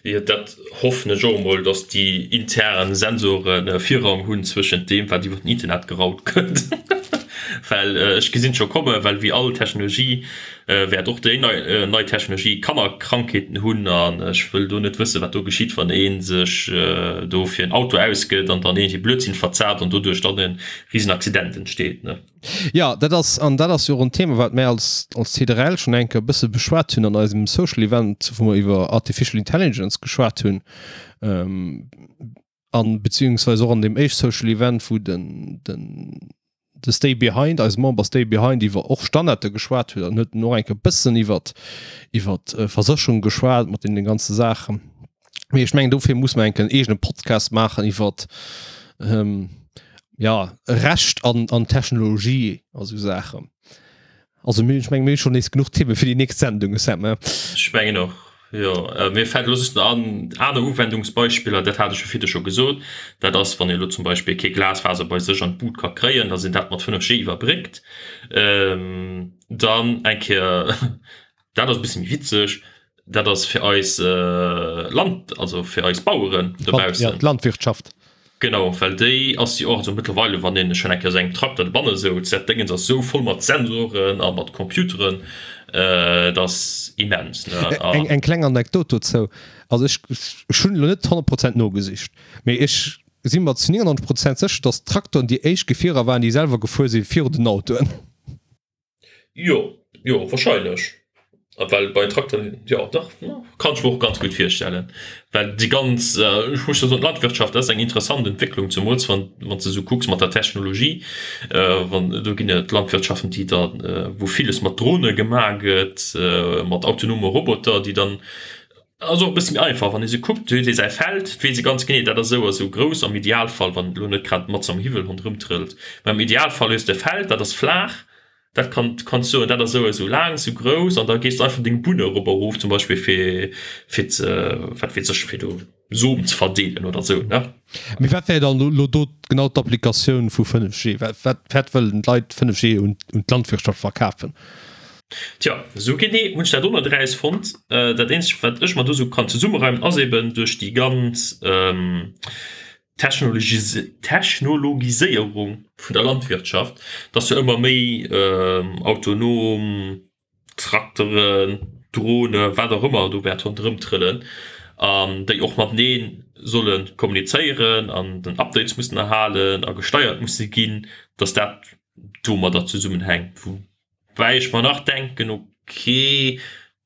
Jo, dat hoffen ech och emol, dass déi intern Sensoren Virrang hunn zwëschent deem, wat iwwer den Internet geraut gëtt. Well ech gesinn et scho kommen, well wéi all Technologie wäert och déi nei Technologie Kannerkrankheeten hunn an ech wëll do net wëssen, wat do geschitt, wann ee sech do fir en Auto ausgëtt an dann iergendwéi Blödsinn verzaapt an doduerch dann e Risenaccident entsteet. Jo, dat ass, an dat ass jo och en Thema, wat mär als, als CDRL schonn eng Kéier e bësse beschwat hunn an eisem Social Event, wou mer iwwer Artificial Intelligence geschwat hunn, an beziehungsweise och an deem éischt Social Event, wou den, den, de Stay Behind, eise Member Stay Behind iwwer och Standarde geschwat huet an huet en och eng Kéier e bëssen iwwer, iwwer Versécherung geschwat mat deene ganze Saachen. Mee ech mengen, dofir muss mer eng Kéier en eegene Podcast maachen iwwer, ja, Recht an, an Technologie a sou Saachen. Also mir, ech mengen, mir hu schonn nees genuch Themen fir déi nächst Sendung, Sam, he? Ech mengen och, jo. Mir fält elo just nach an, aner Uwendungsbeispiller, dat hat ech jo virdu scho gesot, dat ass, wann ee elo zum Beispill kee Glasfaser bei sech an d'Bud ka kréien, dass een dat mat 5G iwwerbréckt. Dann eng Kéier, dat ass e bësse méi witzeg, dat ass fir eis Land, also fir eis Baueren dobaussen. Ja, d'Landwirtschaft. Genau, well déi ass jo och, also mëttlerweile, wann een schonn eng Kéier esou engem Trakter dobanne souz, dat Déngens ass esou voll mat Sensoren a mat Computeren, dat ass immens, ne? Eng, eng kleng Anekdot dozou, also ech, ech hunn elo net 100 Prozent nogesicht, mee ech si mer zu 99 Prozent sécher, datt d'Traktoren déi éischt Gefierer waren, déi selwer gefuer si virun den Autoen. Jo, jo, wahrscheinlech. Well bei Trakteren, jo dach, kann ech mer och ganz gutt virstellen. Well déi ganz, ech muss jo soen, d'Landwirtschaft ass eng interessant Entwécklung, zemools wann wann s de esou kucks mat der Technologie. Wann do ginn et Landwirtschaften, déi da wou villes mat Drone gemaach gëtt, mat autonome Roboter, déi dann Ass och e bësse méi einfach, wann ee sou kuckt, huet ee säi Feld, weess ee ganz genee, dat ass esou a sou grouss, am Idealfall, wann elo net grad matzen am Hiwwel ronderëm trëllt, mä am Idealfall hues de e Feld, dat ass flaach, dat kann, kanns soen, dat ass esou a sou laang, sou grouss, an da gees de einfach deng Bunn erop a erof zum Beispill, fir, fir ze, wat weess ech, fir do Som ze verdeelen oder sou, ne? Mee wat wär dann elo do genau d'Applikatioun vu 5G? Wat, wat, wat wëllen d'Leit 5G un, un d'Landwirtschaft verkafen? Tja, esou genee hunn ech dat och net erausfonnt. Dat eenzegt, wat ech mer do esou kann zesummereimen, ass eben duerch déi ganz Technologiséierung vun der Landwirtschaft, dass jo ëmmer méi autonom Trakteren, Drone, wat och ëmmer do wäert ronderëm trëllen an déi och matenee solle kommunizéieren an den Updates mussen erhalen a gesteiert musse ginn, dass dat domadder zesummenhänkt. Woubäi ech mer nach denken, okay,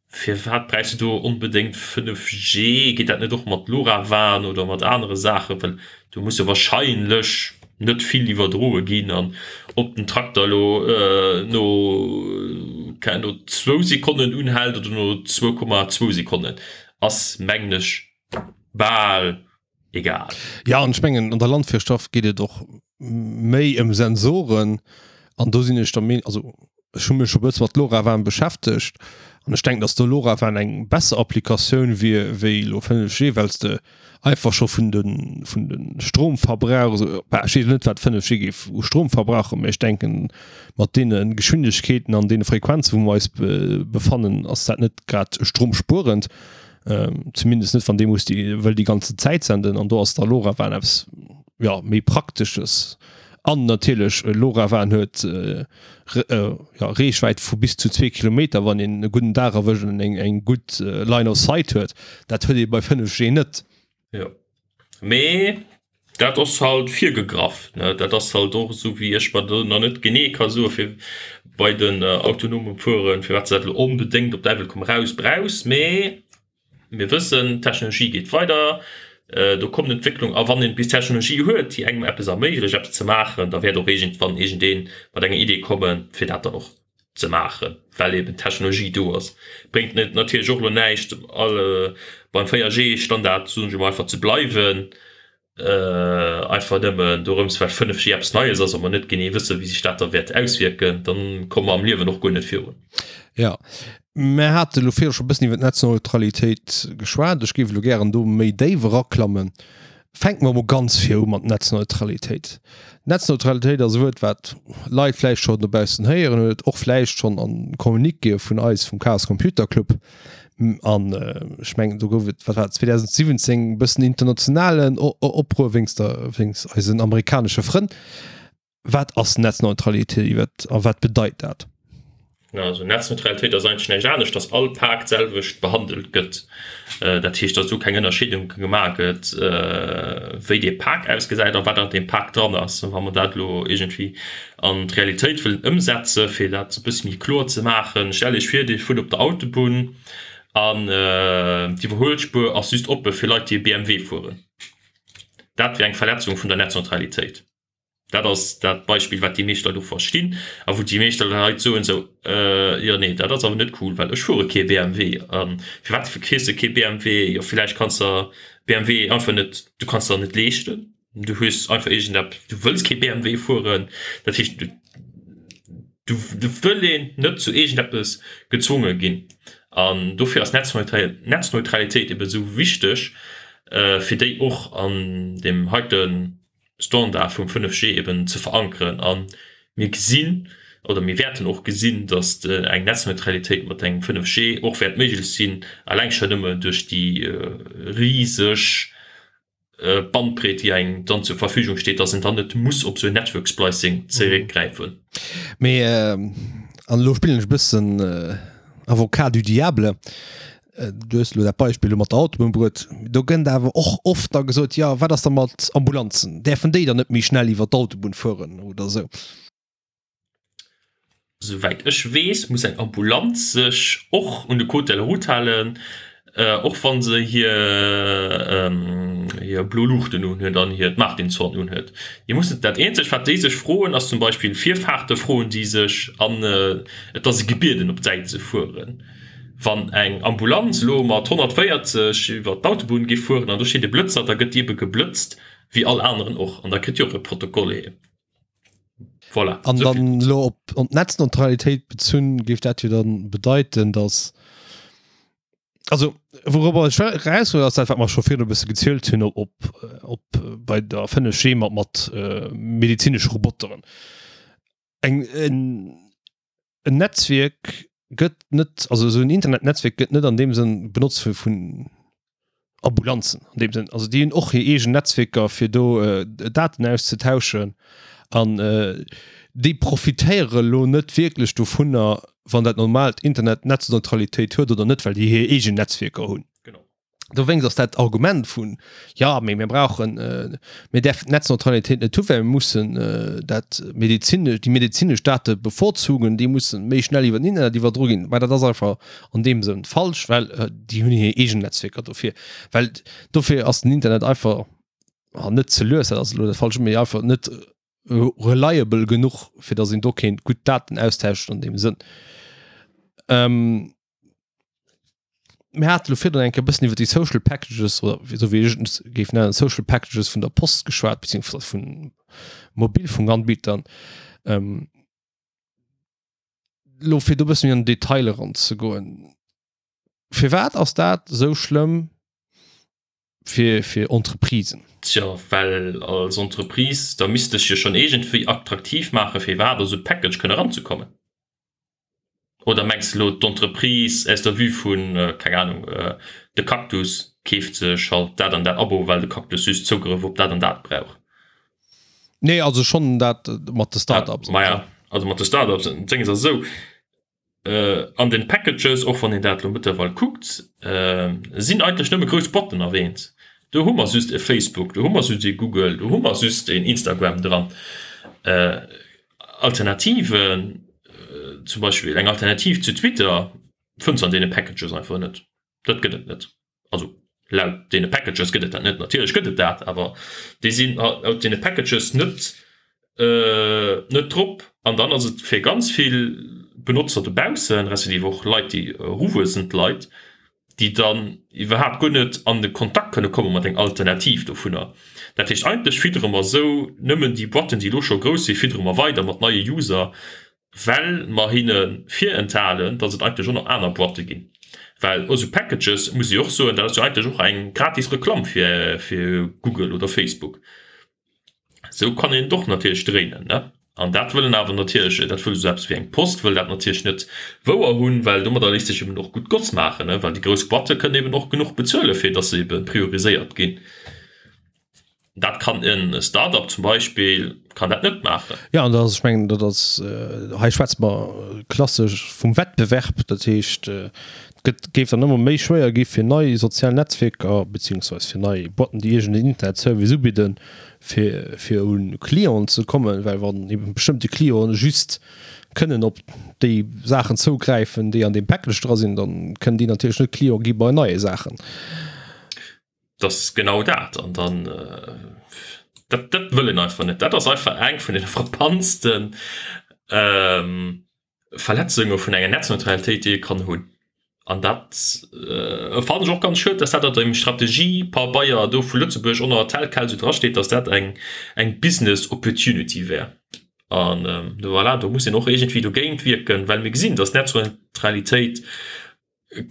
firwat bräichs de do onbedéngt 5G? Geet dat net och mat LoRaWAN oder mat anere Saachen? Well do muss jo wahrscheinlech net vill iwwerdroe ginn an ob den Trakter elo no no zwou Sekonnen unhält oder no 2,2 Sekonnen ass mengen ech bal egal. Jo, an ech mengen an der Landwirtschaft geet et och méi ëm Sensoren an do sinn ech der Meenung, also ech hu mech scho bësse mat LoRaWAN beschäftegt an ech denken, datt do LoRaWAN eng besser Applikatioun wier wéi elo 5G, well s de einfach scho vun de vun de Stromverbrauch esou, bah ech weess elo net wat 5G géif u Strom verbrauchen, mä ech denken mat deene Geschwindegkeeten an deene Frequenzen wou mer eis befannen, ass dat net grad stromspuerend, zumindest net wann dee muss déi wëll déi ganze Zäit senden an do ass da LoRaWAN eppes. jo, méi Praktesches. An natierlech LoRaWAN huet jo Reechwäit vu bis zu zwee Kilometer, wann een e gudden Dag erwëscht an eng eng gutt Line of Sight huet. Dat huet ee bei 5G net. Jo, mee dat ass halt virgegraff, ne? Dat ass halt och esou, wéi ech mer do nach net genee ka soe fir bei den autonomen Fueren, firwat se dat elo onbedéngt op Däiwel komm raus brauchs. Mee mir wëssen, d'Technologie geet weider, do kommen Entwécklung a wann een bis Technologie huet, déi engem eppes erméiglecht eppes ze maachen, da wäert och iergendwann iergendee mat enger Idee kommen, fir dat dann och ze maachen, well eben d'Technologie do ass. Bréngt et natierlech och elo näischt, beim 4G-Standard, soen ech emol, einfach ze bleiwen, einfach nëmmen dorëms, well 5G eppes Neies ass a mer net genee wëssen, wéi sech dat da wäert auswierken, da komme mer am Liewen och guer net virun. Jo, mer hate elo virdru scho e bëssen iwwer d'Netzneutralitéit geschwat. Ech géif elo gären do méi déif eraklammen. Fänke mer emol ganz vir u mat Netzneutralitéit. Netzneutralitéit ass e Wuert, wat Leit vläicht schonn dobaussen héieren huet, och vläicht schonn a Communiquéë vun eis vum Chaos Computer Club. An ech mengen, do gouf et, wat war et, 2017 e bëssen internationalen Opruer wéinst der, wéinst eisen amerikanesche Frënn. Wat ass Netzneutralitéit iwwer a wat bedeit dat? Also Netzneutralitéit ass eigentlech näischt anescht, dass all Pak d'selwecht behandelt gëtt. Dat heescht, dass do keng Ënnerscheedung gemaach gëtt, wéi dee Pak ausgesäit a wat an deem Pak dran ass. Wa mer dat elo iergendwéi an d'Realitéit wëllen ëmsetzen, fir dat e bësse méi kloer ze maachen, Stellt Iech vir, Dir fuert op der Autobunn an d'Iwwerhuelspuer ass just oppe fir Leit, déi e BMW fueren. Dat wier eng Verletzung vun der Netzneutralitéit. Dat ass dat Beispill, wat déi meescht Leit och verstinn a wou déi meescht Leit soen esou, Jo, nee, dat ass awer net cool, well ech fuere kee BMW. A firwat fiers de kee BMW? Jo, villäicht kanns de BMW einfach net, du kanns der net leeschten, du hues einfach iergendepp, du wëlls kee BMW fueren. Dat heescht, du du wëll een net zu iergendeppes gezwonge ginn. An dofir ass Netzneutralitéit ebe sou wichteg, fir déi och an deem heiten Standard vum 5G eben ze verankeren. A mir gesinn oder mir wäerten och gesinn, datt eng Netzneutralitéit mat engem 5G och wäert méiglech sinn, eleng schonn nëmme duerch déi riseg Bandbreet, déi engem dann zur Verfügung steet, datt een dann net muss op esou en Network Splicing zeréckgräifen. Mee, an elo spillen ech e bëssen Avocat du diable, Du hues elo dat Beispill elo mat der Autobunn bruet. Do gënnt awer och oft da gesot, jo wat ass da mat Ambulanzen, däerfen déi dann net méi schnell iwwer d'Autobunn fueren oder esou? Souwäit ech weess, muss eng Ambulanz sech och un de Code de la route halen, och wa se hir hir blo Luuchten unhuet an hiert Martinshorn unhuet. Déi mussen, dat eenzegt wat déi sech froen, ass zum Beispill Virfahrte froen déi sech an et ass e gebieden op d'Säit ze fueren. Wann eng Ambulanz elo mat 140 iwwer d'Autobunn géif fueren an do steet e Blëtzer, da gëtt déi ebe geblëtzt wéi all aneren och an da kritt déi och e Protokoll heem. Voilà. An dann elo op op d'Netzneutralitéit bezunn, géif dat jo dann bedeiten, datt, also wourobber ech eraus wëll, ass dat wat mer scho virdu e bësse gezielt hunn op op bei der 5G mat mat medezinesche Roboteren. Eng en. En Netzwierk gëtt net, also esou en Internetnetzwierk gëtt net an deem Sënn benotzt vu vun Ambulanzen an deem Sënn. Also déi hunn och hir eegen Netzwierker fir do Daten auszetauschen an déi profitéiere lo net wierklech dovunner, wann dat normaalt Internet Netzneutralitéit huet oder net, well déi hir eegen Netzwierker hunn. Dowéinst ass dat Argument vun, jo, mee mir brauchen, mir däerfen d'Netzneutralitéit net hu well mir mussen dat medezinesch, déi medezinesch Date bevorzugen, déi mussen méi schnell iwwer den Internet iwwerdro ginn. Mä dat ass einfach an deem Sënn falsch, well déi hunn hir eegen Netzwierker dofir. Well dofir ass den Internet einfach, net ze lues, dat ass elo dat Falscht, mee einfach net reliable genuch, fir datt een do kéint gutt Daten austauschen an deem Sënn. Mir hate lo virdrun eng Kéier e bëssen iwwer déi Social Packages oder esou wéi ech et géif nennen, Social Packages vun der Post geschwat, beziehungsweise vun Mobilfunkanbietern. Ähm, lo fir do e bëssen méi an den Detail eranzegoen, firwat ass dat esou schlëmm fir, fir Entreprisen? Tjo, well als Entreprise, da misst dech jo schonn iergendwéi attraktiv maachen, fir iwwerhaapt a sou e Package kënne eranzekommen. Oder mengs de elo d'Entreprise aus der Vue vun, keng Ahnung, de Cactus keeft sech halt dat an dat Abo, well de Cactus just Zougrëff op dat an dat brauch? Nee, also schonn dat mat de Start-ups. Maja, also mat de Start-ups, d'Dénges ass esou, an den Packages, och wann een dat elo mëttlerweil kuckt, sinn eigentlech nëmme grouss Boîten erwähnt. Do hu mer just e Facebook, do hu mer just e Google, do hu mer just en Instagram dran. Alternativen, zum Beispill eng Alternativ zu Twitter, fënns de an deene Packages einfach net. Dat gëtt et net. Also laut deene Packages gëtt et dat net. Natierlech gëtt et dat, awer déi sinn laut deene Packages net net drop. An dann ass et fir ganz vill Benotzer dobaussen, respektiv och Leit, déi eruwuessend Leit, déi dann iwwerhaapt guer net an de Kontakt kënne komme mat eng Alternativ dovunner. Dat heescht, eigentlech fiddere mer esou nëmmen déi Boîten, déi elo scho grouss sinn, fiddere mer weider mat neie User, well mer hinne virenthalen, dass et eigentlech och nach aner Boîte ginn. Well esou Packages, muss ech och soen, dat ass jo eigentlech och eng gratis Reklamm fir Google oder Facebook. Esou kann een et och natierlech dréinen, ne? An dat wëllen awer natierlech, dat wëll esou eppes wéi eng Post wëll dat natierlech net wouer hunn, well domadder léisst sech eben och gutt Goss maachen, ne? Well déi grouss Boîte kënnen eben och genuch bezuelen, fir dass se ebe prioriséiert ginn. Dat kann en Start-up zum Beispill kann dat net maachen. Jo, an dat ass, ech mengen, dat ass, hei schwätze mer klassesch vum Wettbewerb. Dat heescht, et gëtt, géif dann ëmmer méi schwéier gi fir nei sozial Netzwierker beziehungsweis fir nei Boîten, déi iergend en Internetservice ubidden, fir, fir u Clienten ze kommen, well wann ebe bestëmmte Clienten just kënnen op déi Saachen zougräifen, déi an deem Package dra sinn, da kënnen déi natierlech net Client gi bei neie Saachen. Dat ass genau dat. An dann, dat, dat wëll een einfach net. Dat ass einfach eng vun den frappantsten Verletzunge vun enger Netzneutralitéit, déi ee kann hunn. An dat fannen ech och ganz schued, dass dat an deem Strategiepabeier do vu Lëtzebuerg och nach tel quel esou drasteet, dass dat eng, eng Business Opportunity wär. An voilà, do muss een och iergendwéi dogéint wierken, well mir gesinn, dass Netzneutralitéit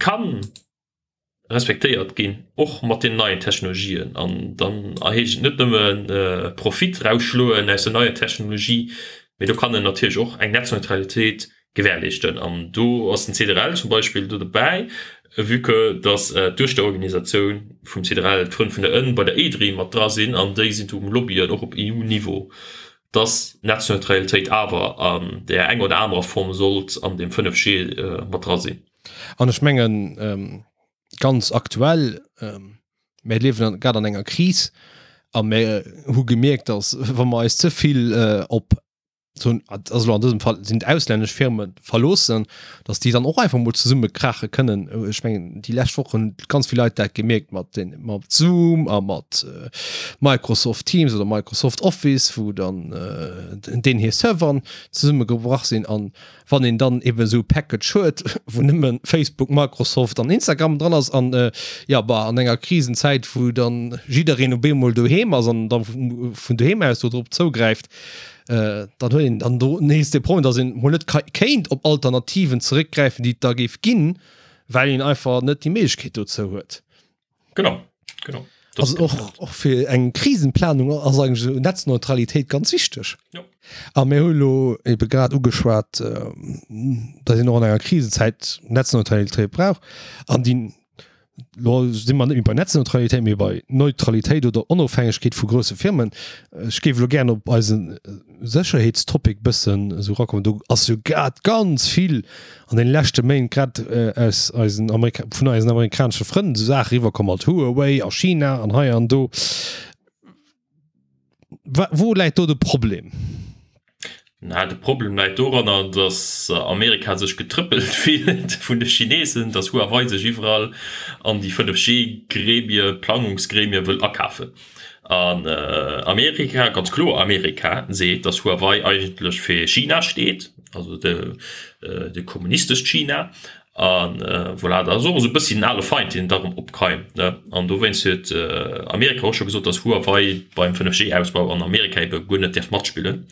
kann respektéiert ginn, och mat den neien Technologien. An dann heescht et net nëmme Profit rausschloen aus der neier Technologie, mee do kann en natierlech och eng Netzneutralitéit gewährleeschten. An do ass den CDRL zum Beispill do dobäi, vue que dass d'Duechterorganisatioun vum CDRL, d'Frënn vun der Ënn, bei der EDRI mat dra sinn an déi sinn do um Lobbyen, och op EU-Niveau, dass d'Netzneutralitéit awer an där enger oder anerer Form sollt an deem 5G mat dra sinn. An ech mengen, ganz aktuell, mir liewen grad an enger Kris a mir hu gemierkt, dass wa mer eis ze vill op, also elo an dësem Fall sinn et auslännesch Firme verloossen, dass déi dann och einfach mol zesummekrache kënnen. Ech mengen, déi lescht Woch hunn ganz vill Leit dat gemierkt mat den, mat Zoom a mat Microsoft Teams oder Microsoft Office, wou dann deen hir Serveren zesummegebrach sinn. An Wann een dann eben esou e Package huet, wou nëmme Facebook, Microsoft an Instagram dran ass an jo bah an enger Krisenzäit, wou dann jiddereen op eemol doheem ass an da vun doheem aus do drop zougräift, dann huet een dann do nees de Problem, datt een mol net kéint op Alternativen zeréckgräifen, déi et da géif ginn, well een einfach net déi Méiglechkeet dozou huet. Genau, genau. Also och, och fir eng Krisenplanung ass eigentlech esou Netzneutralitéit ganz wichteg. Jo. A mir hu lo ebe grad ugeschwat, datt een och an enger Krisenzäit Netzneutralitéit brauch. An déi, lo si mer net méi bei Netzneutralitéit, mee bei Neutralitéit oder Onofhängegkeet vu grousse Firmen. Ech géif elo gären op eise Sécherheetstopic bëssen esou erakommen. Do ass jo grad ganz vill an den leschte Méint grad aus eisen Amerika vun eisen amerikanesche Frënn esou Saache riwwerkomm mat Huawei a China an hei an do. Wa wou läit do de Problem? Na, de Problem läit doranner, datt Amerika sech getrëppelt fillt vun de Chinesen, datt Huawei sech iwwerall an déi 5G-Gremie, Plangungsgremie wëll akafen. An Amerika, ganz kloer Amerika, seet, datt Huawei eigentlech fir China steet, also de de kommunistescht China. A voilà, dat ass och esou e bëssi den ale Feind, deen da erëm opkeimt, ne. An dowéinst huet Amerika och scho gesot, datt Huawei beim 5G-Ausbau an Amerika ebe guer net däerf matspillen.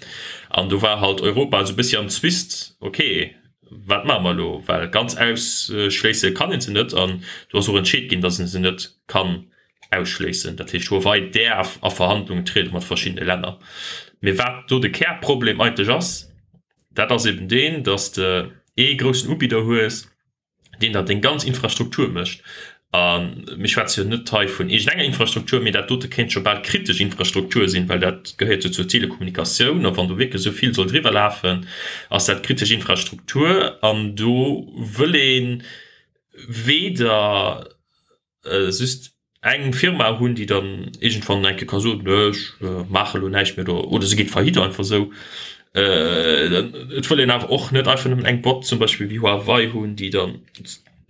An do war halt Europa esou e bëssi am Zwist, okay, wat maache mer elo? Well ganz ausschléisse kann ee se net. An do ass och entscheet ginn, datt ee se net kann ausschléissen. Dat heescht, Huawei däerf a Verhandlungen triede mat verschiddene Länner. Mee wat do de Kärproblem eigentlech ass, dat ass eben deen, datt s de ee groussen Ubidder hues, deen der deng ganz Infrastruktur mécht. A mir schwätze jo net hei vun iergendenger Infrastruktur, mee dat dote kéint scho bal kritesch Infrastruktur sinn, well dat gehéiert jo zur Telekommunikatioun. A wann do wierklech esou vill soll driwwer lafen, ass dat kritesch Infrastruktur. An do wëll ee weder just eng Firma hunn, déi dann iergendwann eng Kéier ka soen, Nö, ech maache elo näischt méi oder oder se geet faillite einfach esou. Et wëll een awer och net einfach nëmmen eng Boîte zum Beispill wéi Huawei hunn, déi dann,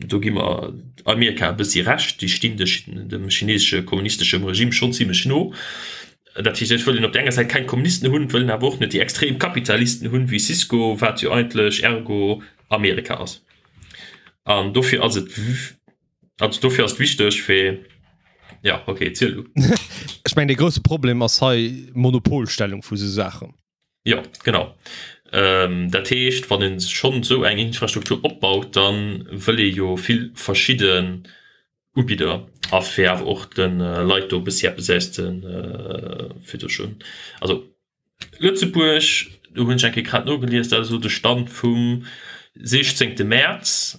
do gi mer Amerika e bëssi Recht, déi stinn dem chinesesche kommunisteschem Regime schonn zimlech no. Dat heescht, et wëll een op där enger Säit keng Kommunisten hunn, et wëll een awer och net déi extrem Kapitalisten hunn, wéi Cisco, wat jo eigentlech ergo Amerika ass. An dofir ass et, also dofir ass et wichteg fir, ja okay, ziel du. Ech mengen, dee grousse Problem ass hei d'Monopolstellung vu sou Saachen. Jo, genau. Dat heescht, wann ee schonn esou eng Infrastruktur opbaut, da wëll ee jo vill verschidden Ubidder a fir awer och de Leit do e bëssi eppes aus de fir do schonn, also Lëtzebuerg, do hunn ech eng Kéier grad nogelies, dat ass elo de Stand vum 16 Mäerz,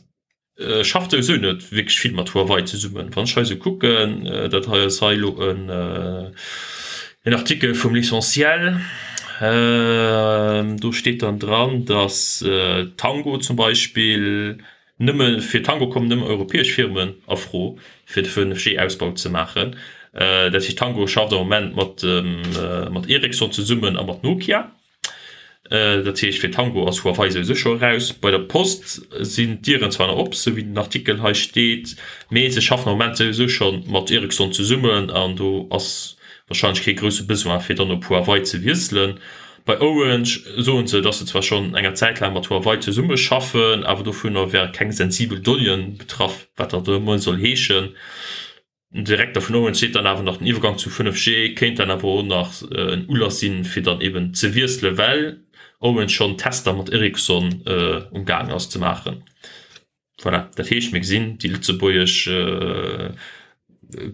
Schafft souwisou net wierklech vill mat Huawei zesummen. Wann ech hei sou kucken, dat hei ass hei elo en Artikel vum L'Essentiel, do steet dann dran, datt Tango zum Beispill nëmme, fir Tango kommen nëmme europäesch Firmen a Fro fir de 5G-Ausbau ze maachen. Dat heescht Tango schafft am Moment mat Ericsson zesummen a mat Nokia. Dat heescht, fir Tango ass Huawei souwisou scho eraus. Bei der Post sinn d'Dieren zwar nach op, sou wéi den Artikel hei steet, mee se schaffen am Moment souwisou scho mat Ericsson zesummen an do ass warscheinlech kee grousse Besoin, fir dann op Huawei ze wiesselen. Bei Orange soen se, datt se zwar schonn enger Zäit laang mat Huawei zesummeschaffen, awer dovunner wäre keng sensibel Donnéeën betraff, wat dat och ëmmer soll heeschen. Den Direkter vun Orange seet dann awer nach, den Iwwergang zu 5G kéint dann awer och nach en Ulass sinn, fir dann eben ze wiesselen, well Orange schonn Tester mat Ericsson um gaangen ass ze maachen. Voilà, dat heescht, mir gesinn, déi lëtzebuergesch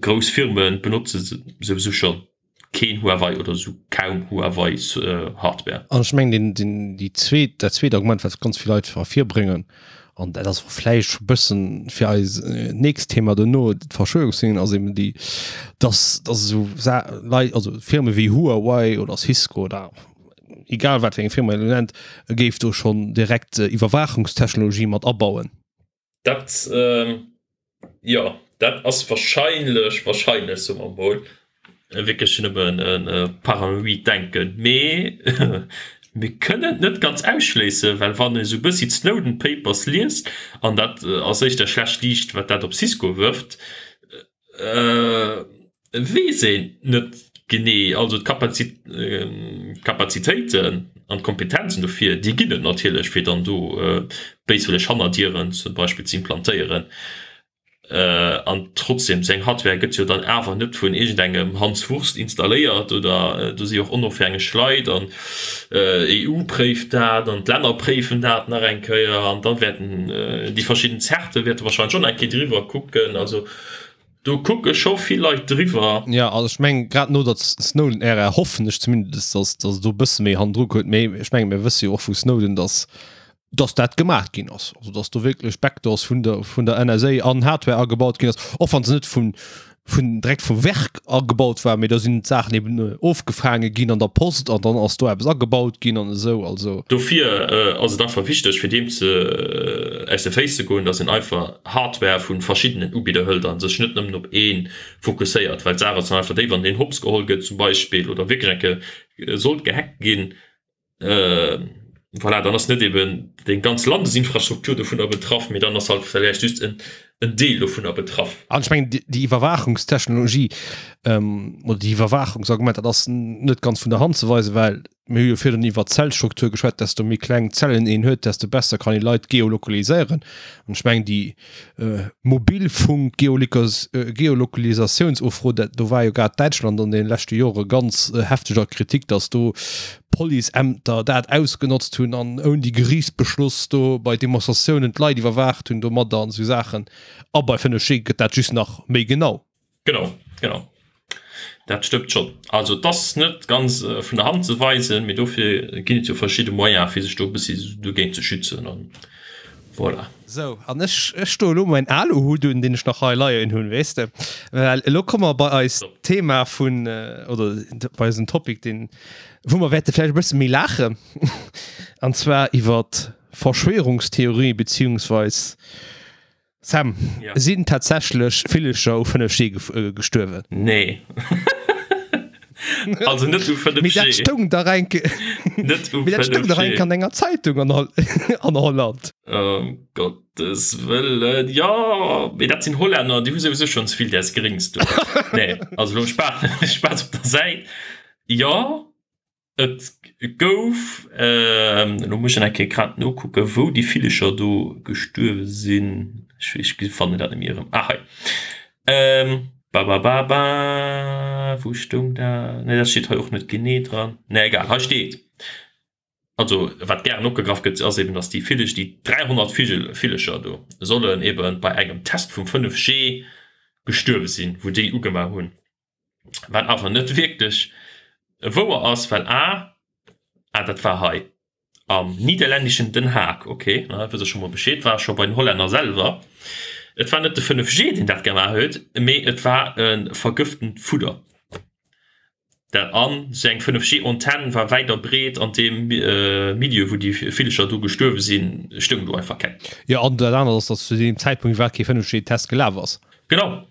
grouss Firme benotze souwisou scho keen Huawei oder sou kaum Huawei Hardware. An ech mengen deen, deen, déi zweet, dat zweet Argument, wat ganz vill Leit ervirbréngen, an dat ass och vläicht scho bëssen fir eis nächst Thema duerno, d'Verschwörungstheorien, ass eben déi, dass, dass esou Sa Leit, also Firme wéi Huawei oder Cisco oder egal wat fir eng Firma een elo nennt, géif do schonn direkt Iwwerwaachungstechnologie mat abauen. Dat, jo, dat ass wahrscheinlech, wahrscheinlech, soe mer emol, wierklech nëmmen e paranoid Denken. Mee mir kënnen et net ganz ausschléissen, well wann ee sou e bëssi d'Snowden Papers liest, an dat ass éischter schlecht Liicht, wat dat op Cisco wërft, Weess een net genee. Also d'Kapazitéiten an d'Kompetenzen dofir, déi ginn et natierlech, fir dann do béiswëlleg Hannerdieren zum Beispill ze implantéieren. An trotzdem, sou eng Hardware gëtt jo dann awer net vun iergendengem Hans Wurst installéiert oder do si jo och onofhängeg Leit an d'EU préift dat an d'Länner préifen dat nach eng Kéier an da wäerten déi verschidden Zerte wäerte wahrscheinlech och nach eng Kéier driwwer kucken. Also Do kucke scho vill Leit driwwer. Jo, also ech mengen, grad no der Snowden-Ära hoffen ech zumindest, dass dass do e bësse méi hannendru kuckt. Mee ech menge mir wësse jo och vu Snowden, dass dass dat gemaach ginn ass. Also dass do wierklech Backdoors vun der vun der NSA an Hardware agebaut ginn ass, och wann se net vun vun direkt vum Werk agebaut war, mee do sinn d'Saachen eben ofgefaange ginn an der Post an dann ass do eppes agebaut ginn an esou. Also. Dofir ass et einfach wichteg, fir deem ze aus de Féiss ze goen, dass een einfach Hardware vu verschiddenen Ubidder hëlt a sech net nëmmen op ee fokusséiert, well d'Saach ass dann einfach déi, wann deen hopps geholl gëtt zum Beispill oder wierklech eng Kéier sollt gehackt ginn, voilà, dann ass net eben déi ganz Landesinfrastruktur dovunner betraff, mee dann ass halt vläicht just en Deel dovunner betraff. An ech mengen, déi Iwwerwaachungstechnologie oder déi Iwwerwaachungsargument, dat ass net ganz vun der Hand ze weisen, well Mir hu jo virdrun iwwert d'Zellstruktur geschwat, desto méi kleng Zellen een huet, desto besser kann ee Leit geolokaliséieren. An ech mengen, déi Mobilfunk-Geolokalisatiounsufro, dat do war jo grad Däitschland an deene leschte Jore ganz hefteg a Kritik, datt do Policeämter dat ausgenotzt hunn an ouni Geriichtsbeschloss do bei Demonstratiounen d'Leit iwwerwaacht hunn domadder an esou Saachen. A bei 5G gëtt dat just nach méi genau. Genau, genau. Dat stëmmt schonn. Also et ass net ganz vun der Hand ze weisen, mee dofir ginn et jo verschidde Moyene fir sech do e bëssi dogéint ze schützen an voilà. Voilà. Sou, an ech, ech stoe elo mäin Aluhut un, deen ech nach hei leien hunn, weess de, well elo komme mer bei eist Thema vun, oder bei eisen Topic, deen, wou mer wäerte vläicht e bësse méi laachen, an zwar iwwer Verschwörungstheorien, beziehungsweis, Sam, Ja. sinn tatsächlech Villecher u 5G gestuerwen? Nee. Also net u 5G. Mee dat stoung dach eng Net u Mee dat stoung dach eng 5G. an enger Zeitung an Hol an Holland. Ëm Gottes Wëllen, jo, mee dat sinn Hollänner, déi hu souwisou schonn ze vill däers Gréngs do. Nee, also elo Spaass, Spaass op der Säit. Jo, Et gouf, elo muss ech nach eng Kéier grad nokucken, wou déi Villecher do gestuerwe sinn. Ech fannen dat net méi erëm. Ah hei. Babababa, wou stoung dat? Nee, dat steet hei och net genee dran. Nee, egal, hei steet, also wat gären opgegraff gëtt, ass eben, datt déi Villech, déi 300 Vigel, Villecher do sollen eben bei engem Test vum 5G gestuerwe sinn, wou déi ugemaach hunn. Wat awer net wierklech wouer ass, well a, ah dat war hei am nidderlänneschen Den Haag, ok, da wësst der scho mol Bescheed, war scho bei den Hollänner selwer. Et war net de 5G deen dat gemaach huet, mee et war e vergëftent Fudder. Dat an esou eng 5G-Antenn war wäit a breet an deem Milieu wou déi Villecher do gestuerwe sinn, stoung do einfach keng. Jo, an dat anert ass, datt zu deem Zäitpunkt iwwerhaapt kee 5G-Test gelaf ass. Genau,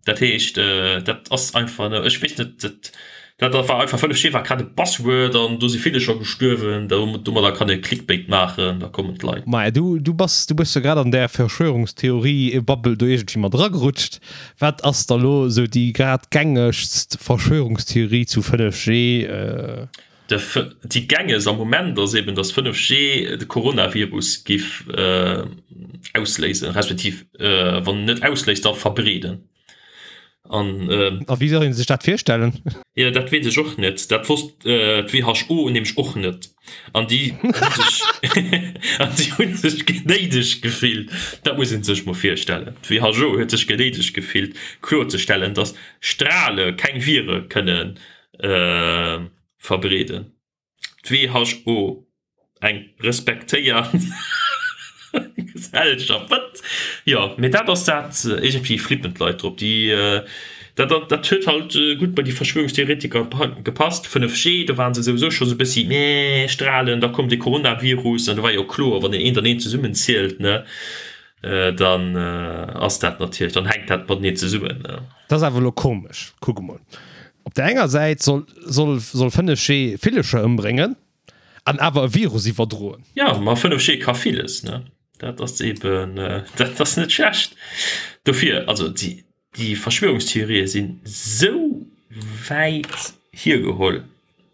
dat heescht dat ass einfach, ech weess net, dat dat war einfach 5G war grad e Buzzword an do si ville scho gestuerwen, domadder kann ee Clickbait maachen, da kommen d'Leit. Maja, du du bass du bass jo grad an där Verschwörungstheorie-Bubble do iergendwéi mat eragerutscht. Wat ass da lo esou déi grad gängegst Verschwörungstheorie zu 5G? Déi gängegst am Moment ass eben, datt 5G de Coronavirus giff ausléisen, respektiv wann net ausléist, da verbreeden. An A wéi soll ee sech dat virstellen? Jo, dat weess ech och net. Dat wosst d'WHO nämlech och net. An déi hu sech an déi hu sech genéidegt gefillt, dat muss ee sech mol virstellen, d'WHO huet sech genéidegt gefillt kloerzestellen, datt Strale keng Vire kënnen verbreeden. D'WHO, eng respektéiert Gesellschaft, wat? Jo, mee dat ass dat, iergendwéi flippen d'Leit drop. Déi, dat, dat huet halt gutt bei déi Verschwörungstheoretiker gepasst. 5G, do ware se souwisou scho sou e bëssi, meh, Strahlen, da koum de Coronavirus an do war jo kloer, wann een eent an eent zesummenzielt, ne, dann ass dat natierlech, dann hänkt dat mateneen zesummen. Dat ass awer elo komesch. Kuck emol, op der enger Säit soll soll soll 5G Villecher ëmbréngen an awer e Virus iwwerdroen. Jo, ma 5G ka villes, ne? Dat ass eben, dat ass net schlecht. Dofir, also déi déi Verschwörungstheorië sinn esou wäit hiergeholl,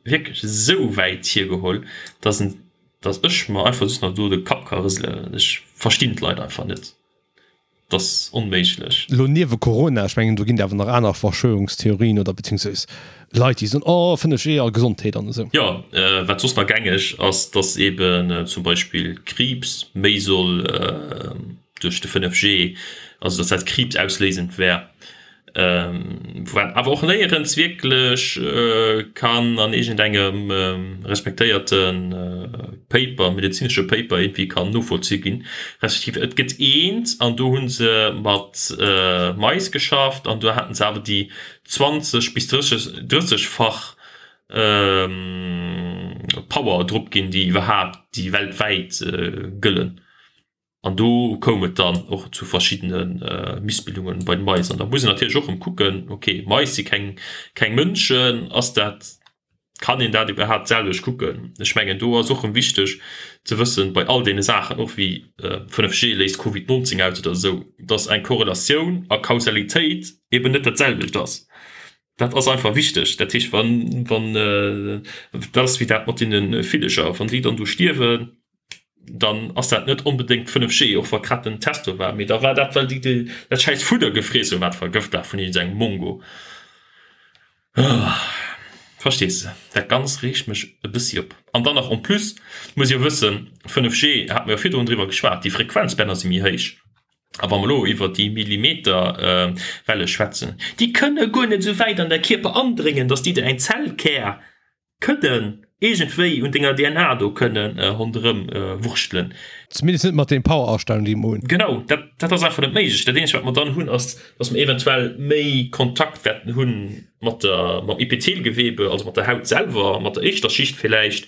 wierklech esou wäit hiergeholl, dass en, dass ech mer einfach just nach do de Kapp ka rëselen. Ech verstinn d'Leit einfach net. Dat ass onméiglech. Elo niewe Corona, ech mengen do ginn et awer nach aner Verschwörungstheorien oder beziehungsweise Leit déi soen, oh 5G a Gesondheet an esou. Jo, wat soss nach gängeg ass, dass eben zum Beispill Kriibs méi soll duerch de 5G, also dass dat kriibsausléisend wär. Wat awer och néierens wierklech kann an iergendengem respektéierte Paper, medezinesche Paper iergendwéi kann novollzu ginn. Respektiv et gëtt eent an do hu se mat Mais geschafft an do haten se awer déi 20 bis 30, 30-fach Power drop ginn, déi iwwerhaapt, déi weltwäit gëllen. An do koum et dann och zu verschiddene Missbildungen bei den Mais. An da muss een natierlech och erëm kucken, ok, Mais si keng, keng Mënschen, ass dat, kann een dat iwwerhaapt d'selwecht kucken? Ech mengen, do ass och erëm wichteg ze wëssen, bei all deene Saachen, och wéi 5G léist Covid 19 aus oder esou, dass eng Korrelatioun a Kausalitéit eben net dat selwecht ass. Dat ass einfach wichteg. Dat heescht, wann, wann, dat ass wéi dat mat deene Villeger, wann déi dann do stierwen, dann ass dat net onbedéngt 5G, och wa grad den Test do war, mee da war dat, well déi dat schäiss Fudder gefriess hunn, wat vergëft war vun iergendengem Mongo. Verstees de? Dat Ganzt reegt mech e bëssi op. An dann nach en plus muss ee jo wëssen, 5G, hate mer jo virdrun driwwer geschwat, déi Frequenzbänner si méi héich. A wa mer elo iwwer déi Millimeterwelle schwätzen, déi kënne guer net esou wäit an däi Kierper andréngen, datt déi der eng Zellkär kënnen. Iergendwéi un denger DNA do kënnen ronderëm wurschtelen. Zumindest net mat den Power-Astellungen déi mer hunn. Genau, dat, dat ass einfach net méiglech. Dat eenzegt wat mer dann hunn ass, dass mer eventuell méi Kontakt wäerten hunn mat der, mam Epithelgewebe, also mat der Haut selwer, mat der éischter Schicht villäicht.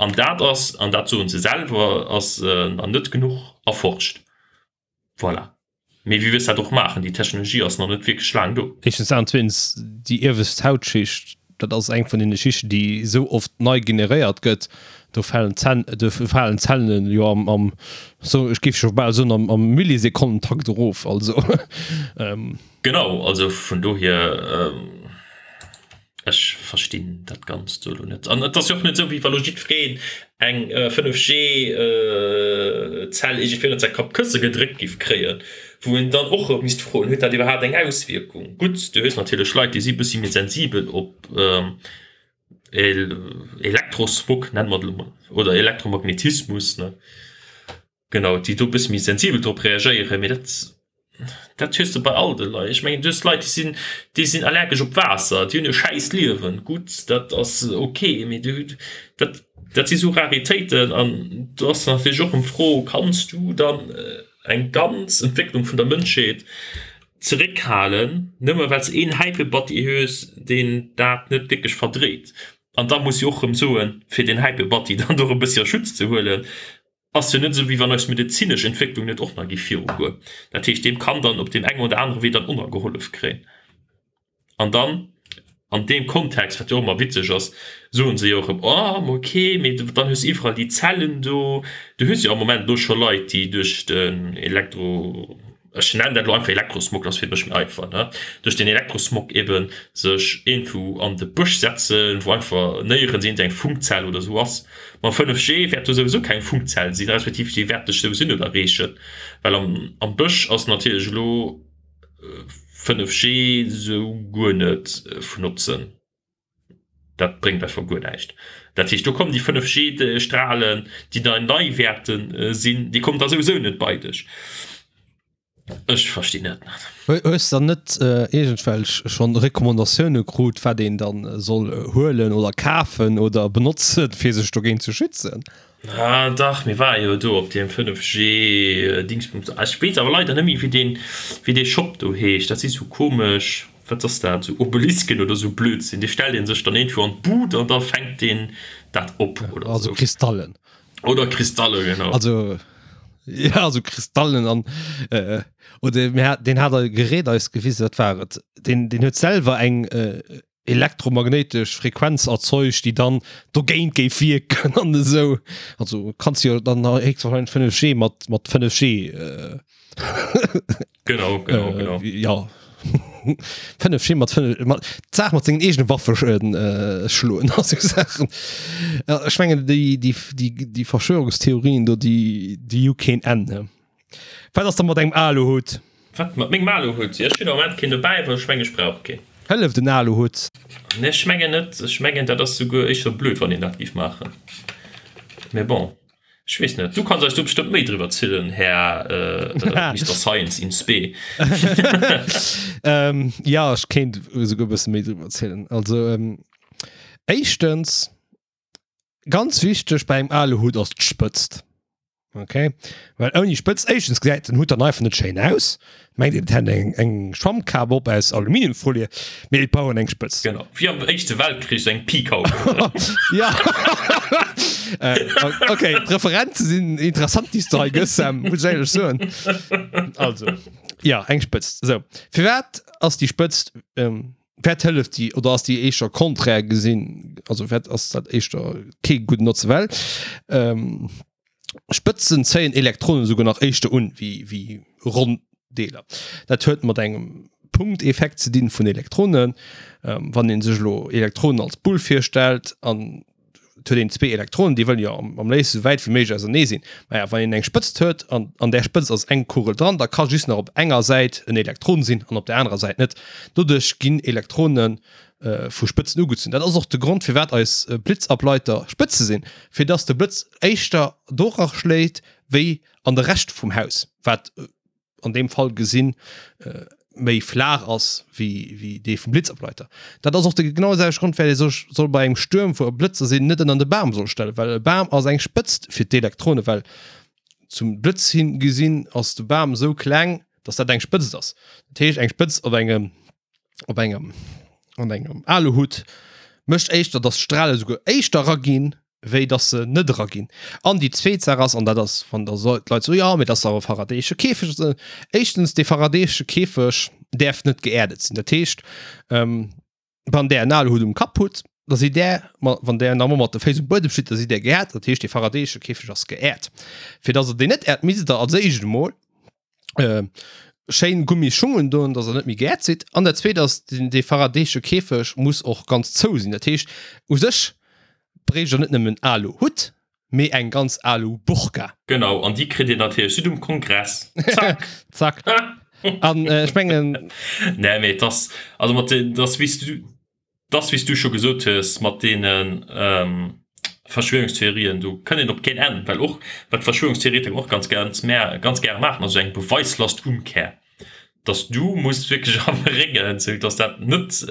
An dat ass, an dat soen se selwer, ass nach net genuch erforscht. Voilà. Mee wéi wëlls dat och maachen? Déi Technologie ass nach net wierklech laang do. Éischtens dat an zweetens déi iewescht Hautschicht, dat ass eng vun deene Schichten, déi esou oft nei generéiert gëtt. Do falen d'Zänn, do falen d'Zellen jo am, am, so ech géif scho bal soen, am, am Millisekonnentakt erof. Also. Genau, also vun dohier. Ech verstinn dat Ganzt do elo net. An et ass jo och net esou, wéi wa lo jiddwereen eng 5G-Zell iergendwéi ënnert säi Kappkësse gedréckt giff kréien, wou een dann och erëm misst froen, Huet dat iwwerhaapt eng Auswierkung? Gutt, du hues natierlech Leit, déi si e bëssi méi sensibel op Elektrosmog, nenne mer et elo mol, oder Elektromagnetismus, ne? Genau, déi do e bësse méi sensibel drop reagéieren, mee dat, dat hues de bei all de Leit. Ech mengen, du hues Leit, déi sinn, déi sinn allergesch op Waasser, déi hunn e schäiss Liewen. Gutt, dat ass ok, mee du, dat, dat si sou Raritéiten an do ass natierlech och eng Fro, Kanns du dann eng ganz Entwécklung vun der Mënschheet zeréckhalen, nëmme well s een Häipebatti hues, deen dat net wierklech verdréit? An da muss ech och erëm soen, fir deen Häipebatti dann do erëm e bëssi a Schutz ze huelen, Ass jo net esou wéi wann eis medezinesch Entwécklung net och nach géif virugoen. Dat heescht, deem kann dann op deem engen oder anere Wee dann och nach gehollef kréien. An dann an deem Kontext, wat jo och ëmmer witzeg ass, soen se jo och erëm, oh ma okay, mee dann hues de iwwerall déi Zellen do. Du hues jo am Moment elo scho Leit, déi duerch den Elektro, ech nennen dat elo einfach Elektrosmog, dat ass fir mech méi einfach, ne, duerch den Elektrosmog eben sech iergendwou an de Bësch setzen, wou einfach néierens iergend eng Funkzell oder esou ass. Mam 5G wäert do souwisou keng Funkzell sinn, respektiv déi wäert dech souwisou net erreechen, well am am Bësch ass natierlech elo 5G sou guer net vun Notzen. Dat bréngt einfach guer näischt. Dat heescht, do kommen déi 5G-Strahlen, déi da nei wäerte sinn, déi kommen da souwisou net bei dech. Ech verstinn dat net. Hues de dann net iergendwelch schonn Recommandatioune krut, wat een dann soll huelen oder kafen oder benotzen, fir sech dogéint ze schützen? Ah dach, mir ware jo do op deem 5G Dingsbums. Ech weess awer leider net méi wéi deen, wéi dee Shop do heescht. Dat si sou komesch, wat ass dat, sou Obelisken oder sou Blödsinn. Dee stellt ee sech dann iergendwou an d'Bud an da fänkt deen dat op oder sou. Also Kristallen. Oder Kristalle, genau. Also ja, also Kristallen an äh, oder mir hat, den hat e Gerät eis gewisen, wat war et? Den, den huet selwer eng äh, elektromagnéitesch Frequenz erzeugt, déi dann dogéint géif wierken an esou. Also kanns jo dann héchstwahrscheinlech 5G mat, mat 5G äh, Genau, genau, äh, genau. Ja. 5G mat 5 mat d'Saach mat sengen eegene Waffe äh, schloen a sou Saachen. Ja, ech mengen déi, déi, déi, déi Verschwörungstheorien do, déi, déi hu keen Enn. Ne? Wat ass da mat engem Aluhutt? Wat mat mengem Aluhutt? Jo, ech hunn am Moment keen dobäi, well ech mengen, ech brauch keen. Hëlleft en Aluhutt? Nee, ech mengen net. Ech mengen, dat ass souguer éischter blöd, wann een dat géif maachen. Mee bon, ech weess net. Du kanns eis do bestëmmt méi driwwer zielen, Här Mister Science in spe. Jo, ech kéint esouguer e bësse méi driwwer zielen. Also, éischtens, Ganz wichteg bei engem Aluhut ass d'Spëtzt. Okay, well ouni Spëtzt, éischtens gesäit den Hut dann einfach net schéin aus. Mengt een, et hätt eng, eng Schwammkap op aus Aluminiumfolie, mee et brauch een eng Spëtzt. Genau, wéi am Éischte Weltkrich sou eng Pikhaube. Ja, okay, d'Referenze sinn interessant, déi s de hei gëss, Sam, muss ech éierlech soen. Also, ja, eng Spëtzt. Sou, firwat ass déi Spëtzt, Wat hëlleft déi oder ass déi éischter konträr gesinn? Also wat ass dat éischter kee gudden Notze well ähm, Spëtzen zéien Elektronen souguer nach éischter un wéi wéi ronn Deeler. Dat huet mat engem Punkteffekt ze dinn vun Elektronen. Ähm, wann een sech elo Elektronen als Bull virstellt an et huet een zwee Elektronen, déi wëllen jo am, am léifsten esou wäit wéi méiglech ausernee sinn. Maja, wann een eng Spëtzt huet an an där Spëtzt ass eng Kugel dran, da ka just nach op enger Säit en Elektron sinn an op der anerer Säit net. Doduerch ginn Elektrone vu Spëtzen ugezunn. Dat ass och de Grond, firwat eis Blitzableiter Spëtze sinn, fir dass de Blëtz éischter dora schléit wéi an de Rescht vum Haus, wat an deem Fall gesinn. méi flaach ass wéi, wéi dee vum Blitzableiter. Dat ass och de genau selwechte Grond, well ee sech soll bei engem Stuerm, wou Blëtzer sinn, net ënner de Bam soll stellen, well e Bam ass eng Spëtzt fir d'Elektrone, well zum Blëtz hin gesinn ass de Bam esou kleng, dass dat eng Spëtzt ass. Dat heescht, eng Spëtzt op engem, op engem, an engem Aluhutt mécht éischter, dass d'Strale souguer éischter eraginn, wéi dass se net eraginn. An déi zweet Saach ass, an dat ass, wann da d'Leit soen, jo, mee dat ass awer e faradayesche Käfeg, éischtens, dee faradayesche Käfeg däerf net geerdet sinn. Dat heescht, wann där en Aluhutt um Kapp hutt, da sidd där, wann där nach emol mat de Féiss um Buedem steet, da sidd där geerdet. Dat heescht, dee faradayesche Käfeg ass geerdet. Fir dass Der deen net äert, misst Der als éischt emol schéin Gummisschung undoen, dass der net méi geäert sidd. An dat zweet ass, den dee faradayesche Käfeg muss och ganz zou sinn. Dat heescht, u sech bréicht der net nëmmen Aluhutt, mee eng ganz Aluburka. Genau, an déi kritt dir natierlech just um Kongress. Zack! Zack. An ech mengen. Nee, mee et ass, also mat den, et ass wéi s du. Dass, wéi s du scho gesot hues, mat deene Verschwörungstheorien, do kënnt een op keen Enn, well och, wat d'Verschwörungstheoretiker och ganz ganz ganz gäre maachen, ass esou eng Beweislastumkehr, dass du muss wierklech erbréngen, sou dass dat net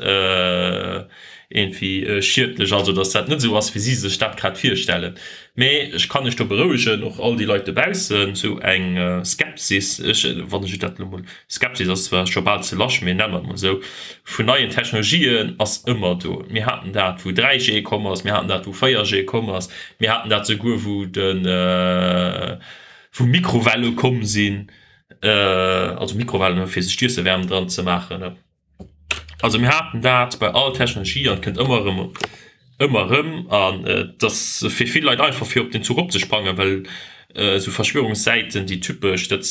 iergendwéi schiedlech ass oder dass dat net esou ass, wéi si sech dat grad virstellen. Mee ech kann iech do berouegen, och all déi Leit dobaussen, esou eng Skepsis, ech, wann ech dat elo mol, Skepsis ass zwar scho bal ze lasch, mee nenne mer et mol esou, vun neien Technologien ass ëmmer do. Mir haten dat, wou 3G komm ass, mir haten dat, wou 4G komm ass, mir haten dat souguer, wou de, wou Mikrowelle komm sinn, also Mikrowellen, fir sech d'Iesse waarm dran ze maachen. Also mir haten dat bei all Technologie an et kënnt ëmmer erëm, ëmmer erëm. An et ass fir vill Leit einfach fir op den Zuch opzesprangen, well esou Verschwörungssäiten, déi typesch, dat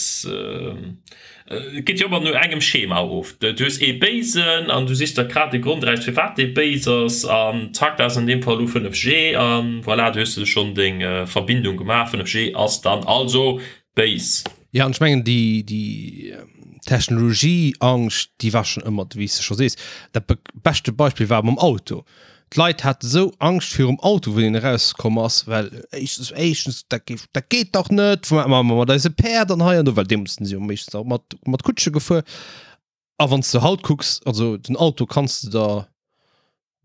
geet jo ëmmer no engem Schema of. Du hues ee Béisen an du sichs der grad de Grond eraus, firwat dee béis ass an zack, dat ass an deem Fall elo 5G an voilà, du hues de schonn deng Verbindung gemaach, 5G ass dann also béis. Jo, an ech mengen, déi, déi Technologieangscht, déi war schonn ëmmer, wéi s de scho sees. Dat beschte Beispill war mam Auto. D'Leit hate sou Angscht virum Auto, wéi deen erauskomm ass, well éischtens, éischtens, dat géif, dat geet dach net, wat maache mer mat eise Päerd an hei an do, well deemools sinn se jo meeschtens nach mat, mat Kutsche gefuer. A wann s de haut kucks, also den Auto kanns de der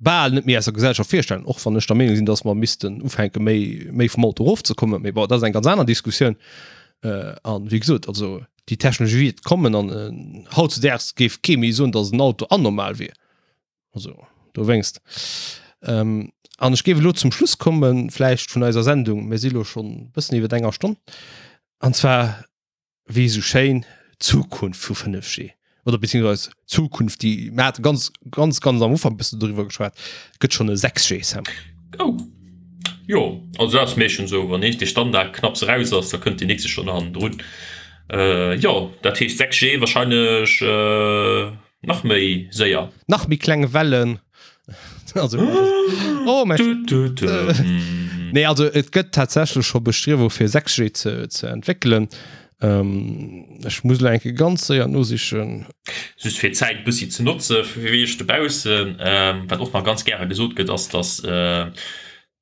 bal net méi aus der Gesellschaft virstellen, och wann ech der Meenung sinn, dass mer missten ufänke méi méi vum Auto erofzekommen, mee bon, dat ass eng ganz aner Diskussioun. An wéi gesot, also déi Technologie wäert kommen an hautzedaags géif kee méi soen, dass en Auto anormal wier. Also dowéinst. An ech géif elo zum Schluss kommen, vläicht vun eiser Sendung, mir si lo schonn e bëssen iwwer enger Stonn, an zwar wéi esou schéin, d'Zukunft vu 5G oder beziehungsweise d'Zukunft, déi mir hate ganz, ganz, ganz am Ufank e bëssen doriwwer geschwat, gëtt schonn e 6G, Sam. Oh, jo, also dat ass meeschtens esou, wann eent de Standard knapps eraus ass, da kënnt deen nächste schonn hannendrun. Jo, dat heescht 6G wahrscheinlech. Nach méi séier. Nach méi kleng Wellen. Also, oh, mein du, du, du. Nee, also et gëtt tatsächlech scho Bestriewung fir 6G ze, ze entwéckelen. Ähm, ech muss lo enke ganz séier nosichen. Just fir d'Zäit e bëssi ze notze fir wéi ech dobaussen, ähm, wat och nach ganz gäre gesot gëtt, ass, datt äh,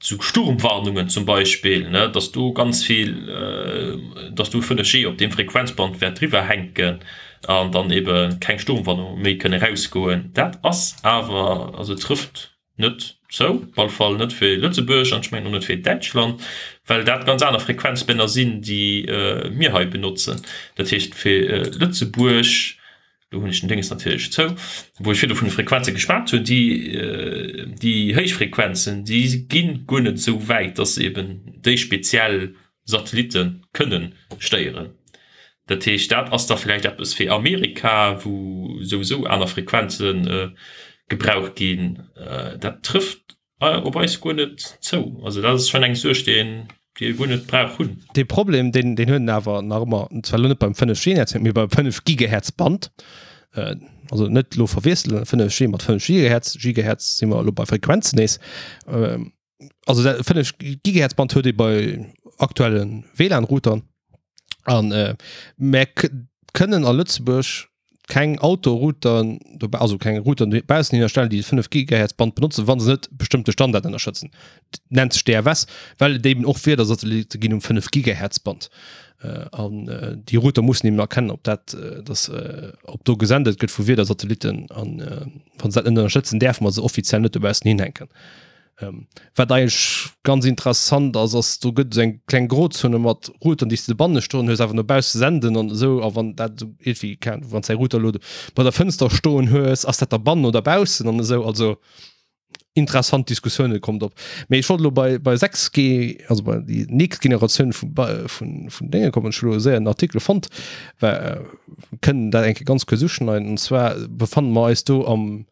Sou Sturmwarnungen zum Beispill, ne, dass do ganz vill, dass do 5G op deem Frequenzband wäert driwwer hänken an dann ebe keng Sturmwarnunge méi kënne rausgoen. Dat ass awer, also trëfft net zou, op alle Fall net fir Lëtzebuerg an ech mengen och net fir Däitschland, well dat ganz aner Frequenzbänner sinn, déi mir hei benotzen. Dat heescht fir Lëtzebuerg Do hunn ech den Dénges natierlech zou, wou ech virdu vun de Frequenze geschwat hunn, déi, déi héich Frequenzen, déi gi guer net esou wäit, dass se eben déi speziell Satellitte kënnen stéieren. Dat heescht, dat ass da vläicht eppes fir Amerika, wou souwisou aner Frequenze gebraucht ginn. Dat trëfft Op eis guer net zou. Also dat ass schonn eng Suerg, déi een, déi ee guer net brauch hunn. Dee Problem, deen, deen huet en awer nach ëmmer, zwar elo net beim 5G-Netzwerk, mee beim 5 Gigahertz-Band. Also net elo verwiesselen, 5G mat 5 Gigahertz, Gigahertz si mer elo bei Frequenzen nees. Also dat 5 Gigahertz-Band huet ee bei aktuelle WLAN-Routern. An mär kënnen a Lëtzebuerg. keng Outdoor-Routeren, also keng Routeren dobaussen hinnerstellen, déi 5 Gigahertz Band benotzen, wa se net bestëmmte Standarden ënnerstëtzen. Nennt sech DFS, well et eben och Wiedersatellitte ginn um 5 Gigahertz Band. An déi Router mussen eben erkennen, ob dat, dass, ob do gesendet gëtt vu Wiedersatellitten. An wa se dat net ënnerstëtzen, däerfe mer se offiziell net dobaussen hinhänken. Wat eigentlech ganz interessant ass, ass do gëtt esou eng kleng Grozone mat Routeren, déi s de dobanne stoen hues, awer no bausse senden an esou. A wann dat esou iergendwéi, keng Ahnung, wann s däi Router elo bei der Fënster stoen hues, ass dat da bannen oder baussen an esou. Also interessant Diskussioune kommt op. Mee ech wollt elo bei, bei 6G, also bei déi nächst Generatioun vu, vun, vun Dénge kommen. Ech hu elo séier en Artikel fonnt, well kënnen dat eng Kéier ganz kuerz uschneiden. Und zwar befanne mer eis do am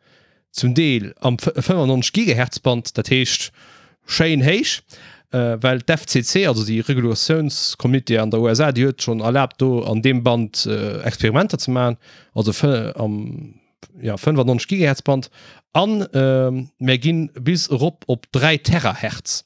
zum Deel am 95 Gigahertz Band, dat heescht schéin héich, well d'FCC, also déi Regulatiounscomité an der USA, déi huet schonn erlaabt do an deem Band Experimenter ze maachen, also am ja 95 Gigahertz Band an mär ginn bis erop op 3 Terahertz.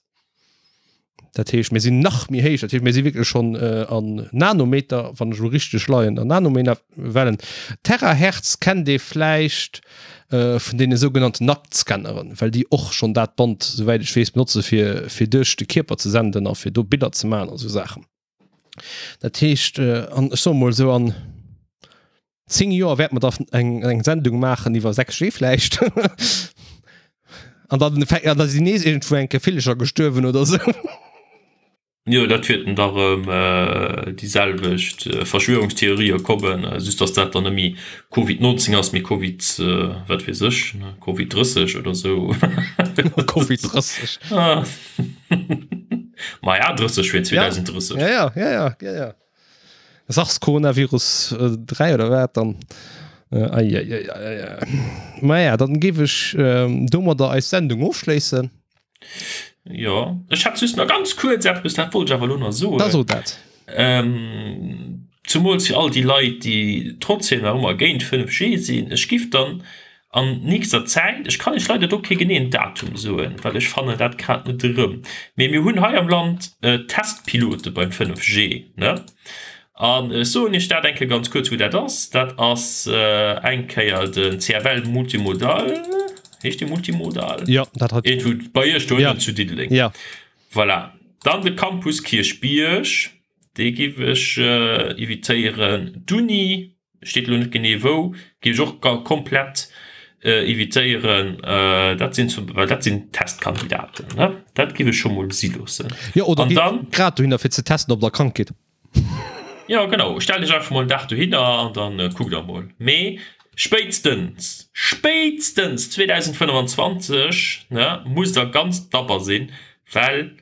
Dat heescht, mir sinn nach méi héich, dat heescht, mir si wierklech schonn an Nanometer, wann ech elo richteg leien, an Nanometerwellen. Terahertz kennt ee vläicht vun deene sougenannten Nacktscanneren, well déi och schonn dat Band, souwäit ech weess, benotze fir fir duerch de Kierper ze senden a fir do Biller ze maachen a sou Saachen. Dat heescht, an ech soe mol esou an 10 Joer wäerte mer da eng, eng Sendung maachen iwwer 6G vläicht. An dann, an da sinn nees iergendwou eng Kéier Villecher gestuerwen oder sou. Jo, dat wäerten da rëm déi selwecht Verschwörungstheorië kommen, just dass dat dann net méi Covid 19 ass, mee Covid wat weess ech, Covid 30 oder sou. Covid 30. Maja, 30 fir 2030. Ja, ja, ja, ja, ja, ja. Sars-Coronavirus 3 oder wat dann? Ei, ei, ei, ei, ei. Maja, dann géif ech domadder eis Sendung ofschléissen. Jo, ech hätt just nach ganz kuerz eppes, dat wollt ech awer elo nach soen. Da so dat. Ähm, zumools fir all déi Leit, déi trotzdem nach ëmmer géint 5G sinn, ech giff dann An nächster Zäit, ech kann Iech leider do kee geneeën Datum soen, well ech fannen dat grad net erëm, mee mir hunn hei am Land Testpilote beim 5G, ne? An ech soen Iech dat eng Kéier ganz kuerz, wou dat ass. Dat ass eng Kéier den CFL Multimodal, heescht dee Multimodal? Jo, dat hat. Iergendwou bei Iech do ënnen zu Diddeleng. Jo. Voilà. Dann de Campus Kierchbierg, dee géif ech evitéieren. D'Uni. Steet elo net genee wou, géif ech och komplett evitéieren. Dat sinn zum, well dat sinn Testkandidaten, ne? Dat géif ech scho mol si loossen. Jo, oder gitt grad dohinner fir ze testen, ob der krank gitt. Jo, genau. Stellt iech einfach mol en Dag dohinner an dann kuckt der mol. Mee spéitstens, spéitstens 2025, ne, musst der ganz dabber sinn, well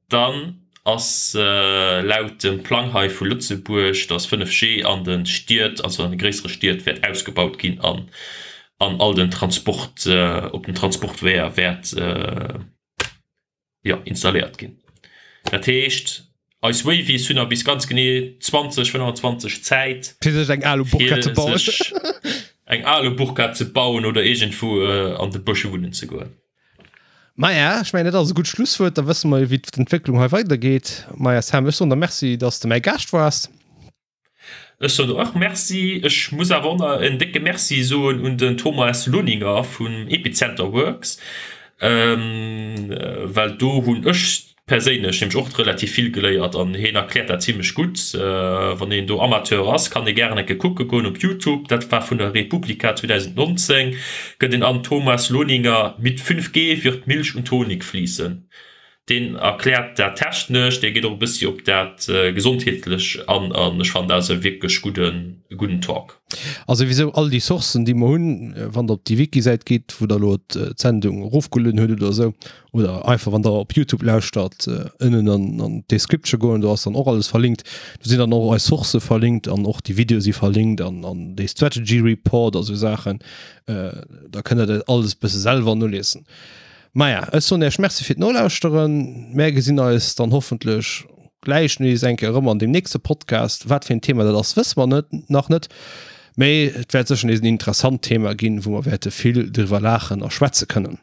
Dann ass laut dem Plang hei vu Lëtzebuerg, dass 5G an de Stied, also an de gréissere Stied wäert ausgebaut ginn an an all den Transport, op den Transportweeër wäert, jo, installéiert ginn. Dat heescht, eis Wavies hunn nach bis ganz genee 2025 Zäit, fir sech eng Alu-Burka ze bauen, eng Alu-Burka ze bauen oder iergendwou an de Bësch wunnen ze goen. Maja, ech mengen, dat ass e gutt Schlusswuert. Da wësse mer jo, wéi d'Entwécklung hei weidergeet. Maja, Sam, ech soen der Merci, dass de mäi Gaascht waars. Ech soen der och Merci. Ech muss awer och nach en décke Merci soen un den Thomas Lohninger vun Epicenter Works, well do hunn ech Perséinlech hunn ech och relativ vill geléiert an heen erkläert dat zimlech gutt. Wann een do Amateur ass, kann ee gären eng Kéier kucke goen op Youtube, dat war vun der Republica 2019, gëtt een an Thomas Lohninger mit 5G wird Milch und Honig fließen. Deen erkläert dat technesch, dee geet och e bëssi op dat gesondheetlech an an ech fannen dat ass e wierklech gudden, gudden Talk. A souwisou all déi Sourcen, déi mer hunn, wann der op déi Wiki-Säit gitt, wou der elo d'Sendung erofgelueden hutt oder esou, oder einfach wann der op Youtube lauschtert, ënnen an an d'Description goen, do ass dann och alles verlinkt. Do sinn dann och eis Sourcë verlinkt an och déi Videoe si verlinkt an an dee Strategy Report a sou Saachen. Da kënnt der dat alles bësse selwer noliesen. Maja, ech soen Iech Merci fir d'Nolauschteren. Mär gesinn eis dann hoffentlech gläich nees eng Kéier erëm an deem nächste Podcast. Wat fir en Thema dat ass, wësse mer net, nach net. Mee et wäert sécher nees en interessant Thema ginn, wou mer wäerte vill driwwer laachen a schwätze kënnen.